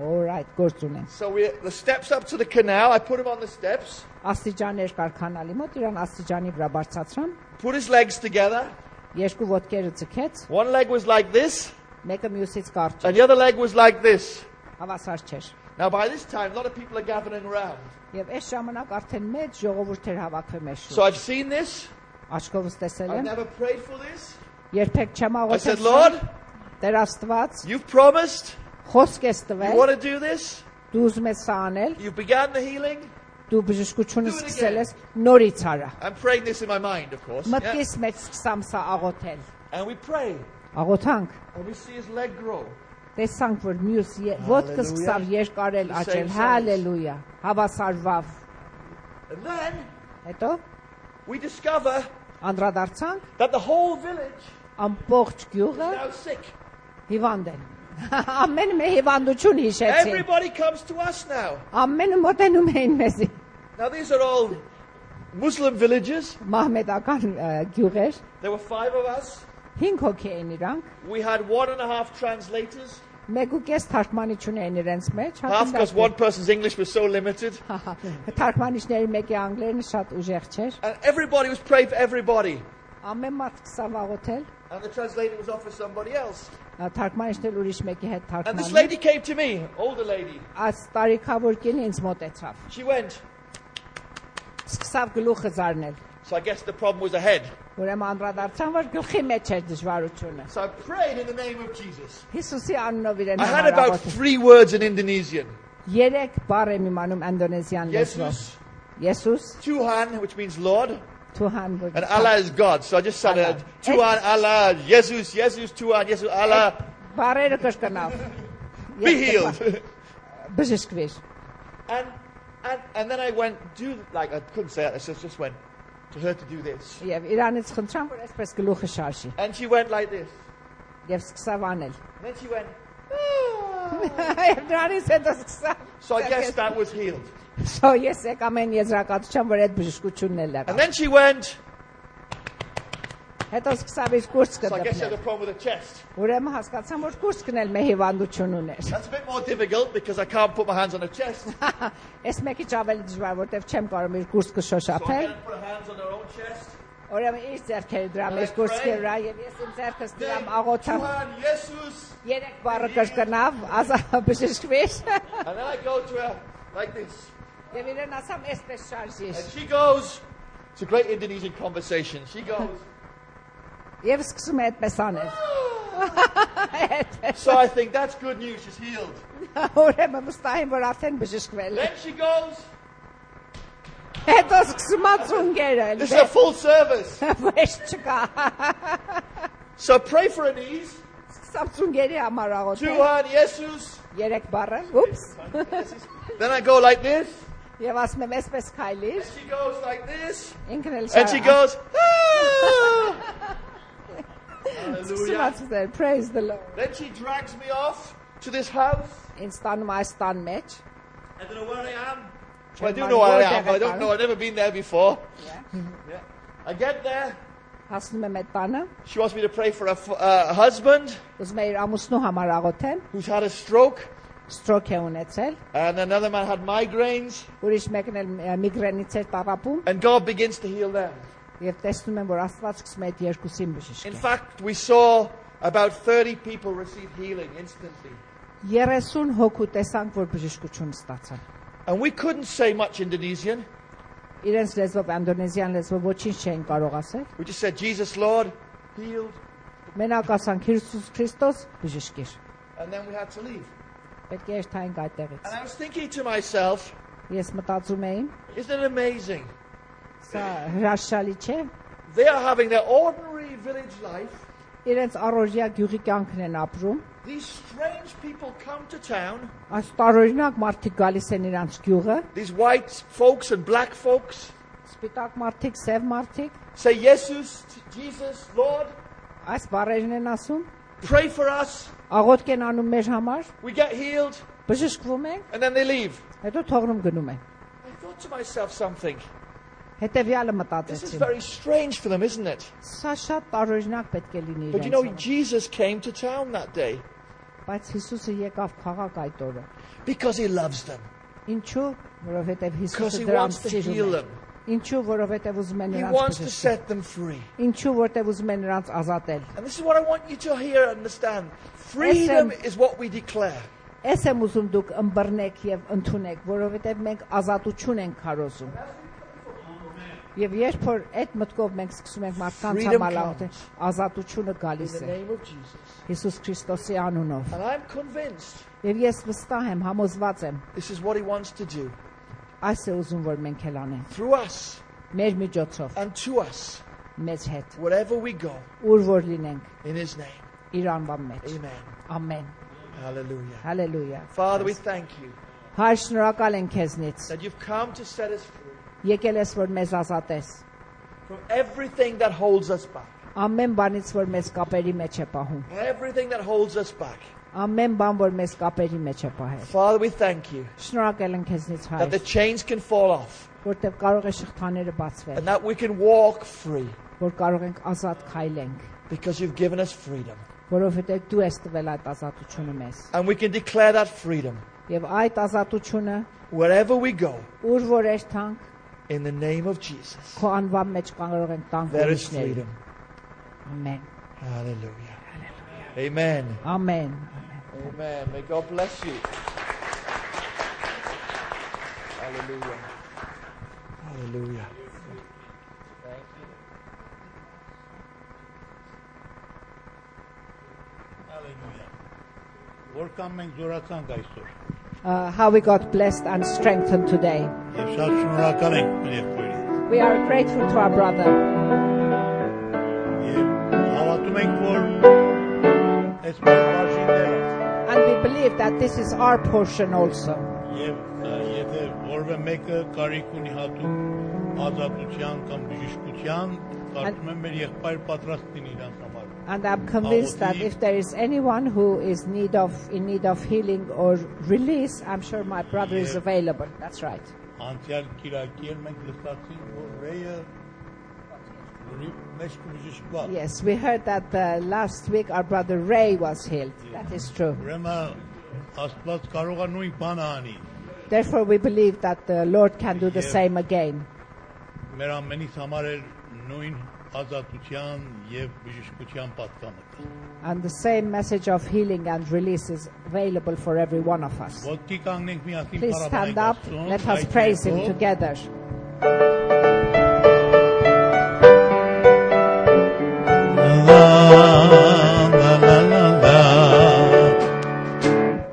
All right, գործ ունեմ։ So the steps up to the canal, I put him on the steps, Աստիճաններ կար կանալի մոտ, իրան աստիճանի վրա բարձրացրամ, put his legs together. երկու ոտքերը ցկեց, One leg was like this, մեկը մյուսից կարճ է։ and the other leg was like this. Հավասար չէր։ Now by this time, a lot of people are gathering around. Եւ այս ժամանակ արդեն մեծ ժողովուրդ էր հավաքվել մեզ So շուրջ։ I've seen this. Աչքովս տեսել I've եմ, never prayed for this. երբեք չեմ I said, աղոթել։ Lord, Տեր Աստված, you've promised. խոսք ես You տվել, want to do this. դու ուզում ես սա անել, You've begun the healing. դու բժշկությունը Do it սկսել again. ես, նորից արա։ I'm praying this in my mind, of course. Yeah. Մտքիս մեջ սկսամ սա աղոթել։ And we pray. Աղոթանք, And we see his leg grow. տեսանք, որ մյուս ոտքը սկսավ երկարել, The աճել, same size. հալելույա, հավասարվավ։ And then Հետո we discover անդրադարձանք, that the whole village ամբողջ is գյուղը now sick. հիվանդ են։ Ամեն մի հիվանդություն հիշեցին։ Everybody comes to us now. Ամենը մոտենում էին մեզի։ Now these are all Muslim villages. Մահմեդական գյուղեր, There were 5 of us. 5 հոգի էին իրանք, We had 1.5 translators. Մեգուկես թարգմանիչուն էին իրենց մեջ, Half because one person's English was so limited. Թարգմանիչների մեկի անգլերենը շատ ուժեղ չէր։ And everybody was praying for everybody. Ամեն մարդ սկսավ աղոթել, And the translator was off for somebody else. թարգմանիչներ ուրիշ մեկի հետ And this թարգմանում։ lady came to me, older lady. Այս տարիքավոր կինը ինձ մոտեցավ։ She went. Սկսավ գլուխը զարնել։ So I guess the problem was ahead. Ուրեմն անդրադարձան, որ գլխի մեջ էր դժվարությունը։ So I prayed in the name of Jesus. Հիսուսի անունով իրեն I had about համարաղոթ։ 3 words in Indonesian. 3 բառ եմ իմանում ինդոնեզիան լեզվով։ Jesus, Եսուս, Tuhan, which means Lord, Tuhan, որ and Allah is God. So I just said Allah. Tuhan, Allah, Jesus, Jesus, Tuhan, Jesus, Allah, բառերը կրկնավ։ be healed. Բժշկվիր։ And then I went, I couldn't say it, I just went to her to do this. Եվ Իրանից խնդրան, որ այսպես գլուխը շարժի։ And she went like this. Եվ սկսավ անել։ And then she went, Եվ դրանից հետո սկսավ։ so I guess that was healed. So ես եկամ այն եզրակացության, որ այդ բժշկությունն էլ And եղավ։ then she went, Հետո սկսավ իր կուրսը so I guess she had a դեպնել։ problem with her chest. Ուրեմն հասկացամ, որ կուրսն էլ մեր հիվանդություն ուներ։ That's a bit more difficult because I can't put my hands on her chest. So Այս մեկի ավելի դժվար, որտեվ չեմ կարող իր կուրսը I շոշափել։ can't put her hands on her own chest. Ուրեմն իր ձեռքերը դրամ իր կուրսի վրա եւ ես իմ ձեռքս դրամ աղոթամ։ Tuhan, Jesus. 3 բառը կրկնավ, բժշկվիր։ And then I go to her like this. Եվ իրեն ասամ, այսպես շարժիր։ And she goes, it's a great Indonesian conversation. She goes, Եվ սկսում է այդպես անել։ so I think that's good news, she's healed. Ուրեմն վստահ եմ, որ արդեն բժշկվել է։ Then she goes, Հետո սկսում է ծունգերը։ this is a full service. Վեշ չկա։ So pray for her knees. Սկսամ ծունգերի համար աղոթել։ Tuhan, Jesus. 3 բառը։ Ուպս։ Then I go like this. Եվ ասում եմ, այսպես քայլիր։ And she goes like this. Ինքն էլ And she goes, ah! Hallelujah. Praise the Lord. Then she drags me off to this house. Ինձ տանում այս տան մեջ։ I don't know where I am. Well, I do know where I am, but I don't know. I've never been there before. Yeah. I get there. Հասնում եմ այդ տանը։ She wants me to pray for a husband Ուզում եմ իր ամուսնու համար աղոթեմ։ who's had a stroke. Ստրոք է ունեցել։ And another man had migraines. Ուրիշ մեկն էլ միգրենից էր տառապում։ And God begins to heal them. Եվ տեսնում եմ, որ Աստված սկսում է այդ երկուսին In բժշկել։ fact, we saw about 30 people receive healing instantly. 30 հոգու տեսանք, որ բժշկություն ստացան։ And we couldn't say much Indonesian. Իրենց լեզվով ինդոնեզիան լեզվով ոչինչ չէին կարող ասել։ We just said, Jesus, Lord, healed. Մենակ ասանք Հիսուս Քրիստոս բժշկիր։ And then we had to leave. Պետք է երթայինք այդտեղից։ And I was thinking to myself, Ես մտածում եմ, isn't it amazing? սա հրաշալի չէ։ They are having their ordinary village life. Իրենց առօրյա գյուղի կյանքն են ապրում։ These strange people come to town. Այս տարօրինակ մարդիկ գալիս են իրանց գյուղը, These white folks and black folks սպիտակ մարդիկ, սև մարդիկ, say, Jesus, Jesus, Lord, այս բառերն են ասում, pray for us. աղոթք են անում մեր համար, We get healed. բժշկվում են, And then they leave. հետո թողնում գնում են։ I thought to myself something. Հետևյալը This is մտածեցին։ very strange for them, isn't it? Սա շատ տարօրինակ պետք է լինի But you know, իրենց։ Jesus came to town that day Բայց Հիսուսը եկավ քաղաք այդ օրը։ because he loves them. Ինչու՞, որովհետև Because Հիսուսը he դրանց wants to սիրում heal է։ them. Ինչու, որովհետև ուզում է He նրանց wants to բժշկել։ set them free. Ինչու, որովհետև ուզում է նրանց ազատել։ And this is what I want you to hear and understand. Freedom is what we declare. Ես եմ ուզում դուք ըմբռնեք եւ ընդունեք, որովհետեւ մենք ազատություն ենք քարոզում։ Եվ երբ որ այդ մտքով մենք սկսում ենք մարդկանց համար աղոթել, ազատությունը գալիս In the է name of Jesus. Հիսուս Քրիստոսի անունով։ And I'm convinced Եվ ես վստահ եմ, համոզված եմ, this is what he wants to do այս է ուզում որ մենք էլ անենք։ through us Մեր միջոցով, and to us, մեզ հետ, wherever we go, ուր որ լինենք, in his name. իր անվան մեջ։ Amen. Ամեն։ Hallelujah. Հալելույա։ Father, we thank you Հայր, շնորհակալ ենք քեզնից։ that you've come to set us free Եկել ես որ մեզ ազատես։ from everything that holds us back. Ամեն բանից որ մեզ կապերի մեջ է պահում։ Everything that holds us back. Ամեն բան որ մեզ կապերի մեջ է պահել։ Father, we thank you Շնորհակալ ենք քեզնից that the հայր, chains can fall off որտեղ կարող է շղթաները բացվել, and that we can walk free. որ կարող ենք ազատ քայլենք, because you've given us freedom. որովհետև դու ես տվել այդ ազատությունը մեզ։ And we can declare that freedom Եվ այդ ազատությունը wherever we go ուր որ երթանք, in the name of Jesus. քո անվան մեջ կարող ենք տանք There is ուրիշների։ freedom. Ամեն։ Hallelujah. Amen. Ամեն։ Amen. May God bless you. Hallelujah. Hallelujah. Thank you. Hallelujah. Որքան մենք զորացանք այսօր։ How we got blessed and strengthened today. Եվ շատ շնորհակալ ենք մեր եղբայրին։ We are grateful to our brother. Եվ հավատում ենք, որ այս մեր բաժինները And we believe that this is our portion also. եւ եթե որևէ մեկը կարիք ունի հատուկ ազատության կամ բժշկության, կարծում եմ մեր եղբայր պատրաստ լինի իրան համար։ And I'm convinced that if there is anyone who is in need of healing or release, I'm sure my brother is available. That's right. Անցյալ Կիրակի մենք լսեցինք, որ Ռեյը մեծ բժշկված։ Yes, we heard that last week our brother Ray was healed. That is true. Ուրեմն Աստված կարող է նույն բանը անի։ Therefore, we believe that the Lord can do the same again. Մեր ամենից համար է նույն ազատության եւ բժշկության պատկանը։ And the same message of healing and release is available for every one of us. Ոտքի կանգնենք միասին Please stand up. Աստծուն, Let us այդ praise Him երգով, together.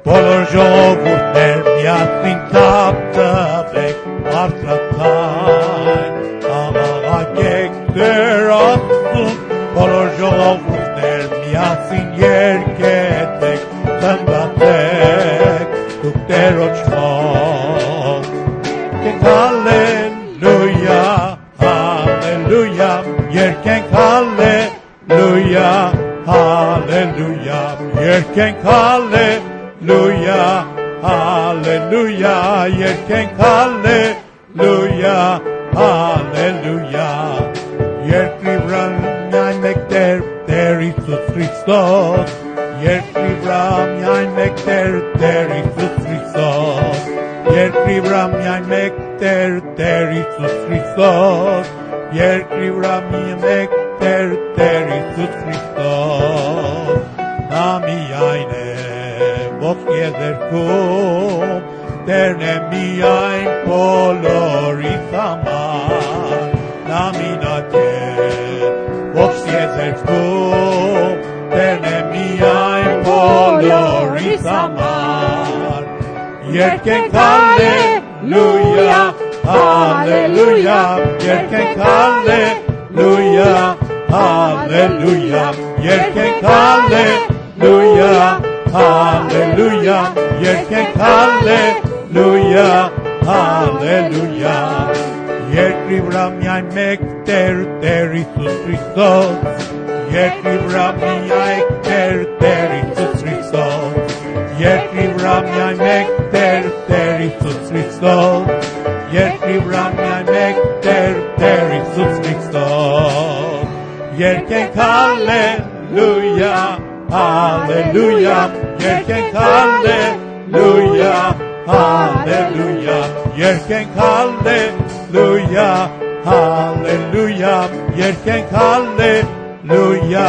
Բոլոր ժողովուրդներ միասին թափ տվեք բարձրացան, աղաղակեք Տեր Աստծուն, բոլոր ժողովուրդներ միասին երգեցեք, խնդացեք դուք Տերոջ խաղ, երգենք հալելույա, հալելույա, երգենք հալելույա, հալելույա, երգենք հալելույա, հալելույա, երգենք հալելույա, հալելույա, երկրի վրա միայն մեկ Տեր, Տեր Հիսուս Քրիստոս, երկրի վրա միայն մեկ Տեր, Տեր Հիսուս Քրիստոս, երկրի վրա միայն մեկ Տեր, Տեր Հիսուս Քրիստոս, երկրի վրա միայն մեկ Տեր, Տեր Հիսուս Քրիստոս, նա միայն է ողջ եզերքում, Տերն է միայն բոլորիս համար, նա մինակ է ողջ եզերքում, Տերն է միայն բոլորիս համար, երգենք հալելույա, հալելույա, երգենք հալելույա, հալելույա, երգենք հալելույա, հալելույա, երգենք հալելույա, հալելույա, երկրի վրա միայն մեկ Տեր, Տեր Հիսուս Քրիստոս, երկրի վրա միայն Տեր, Տեր Հիսուս Քրիստոս, երկրի վրա միայն մեկ Տեր, Տեր Հիսուս Քրիստոս, երկրի վրա միայն մեկ Տեր, Տեր Հիսուս Քրիստոս, երգենք հալելույա, հալելույա, երգենք հալելույա, հալելույա, երգենք հալելույա, հալելույա, երգենք հալելույա,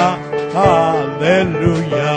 հալելույա.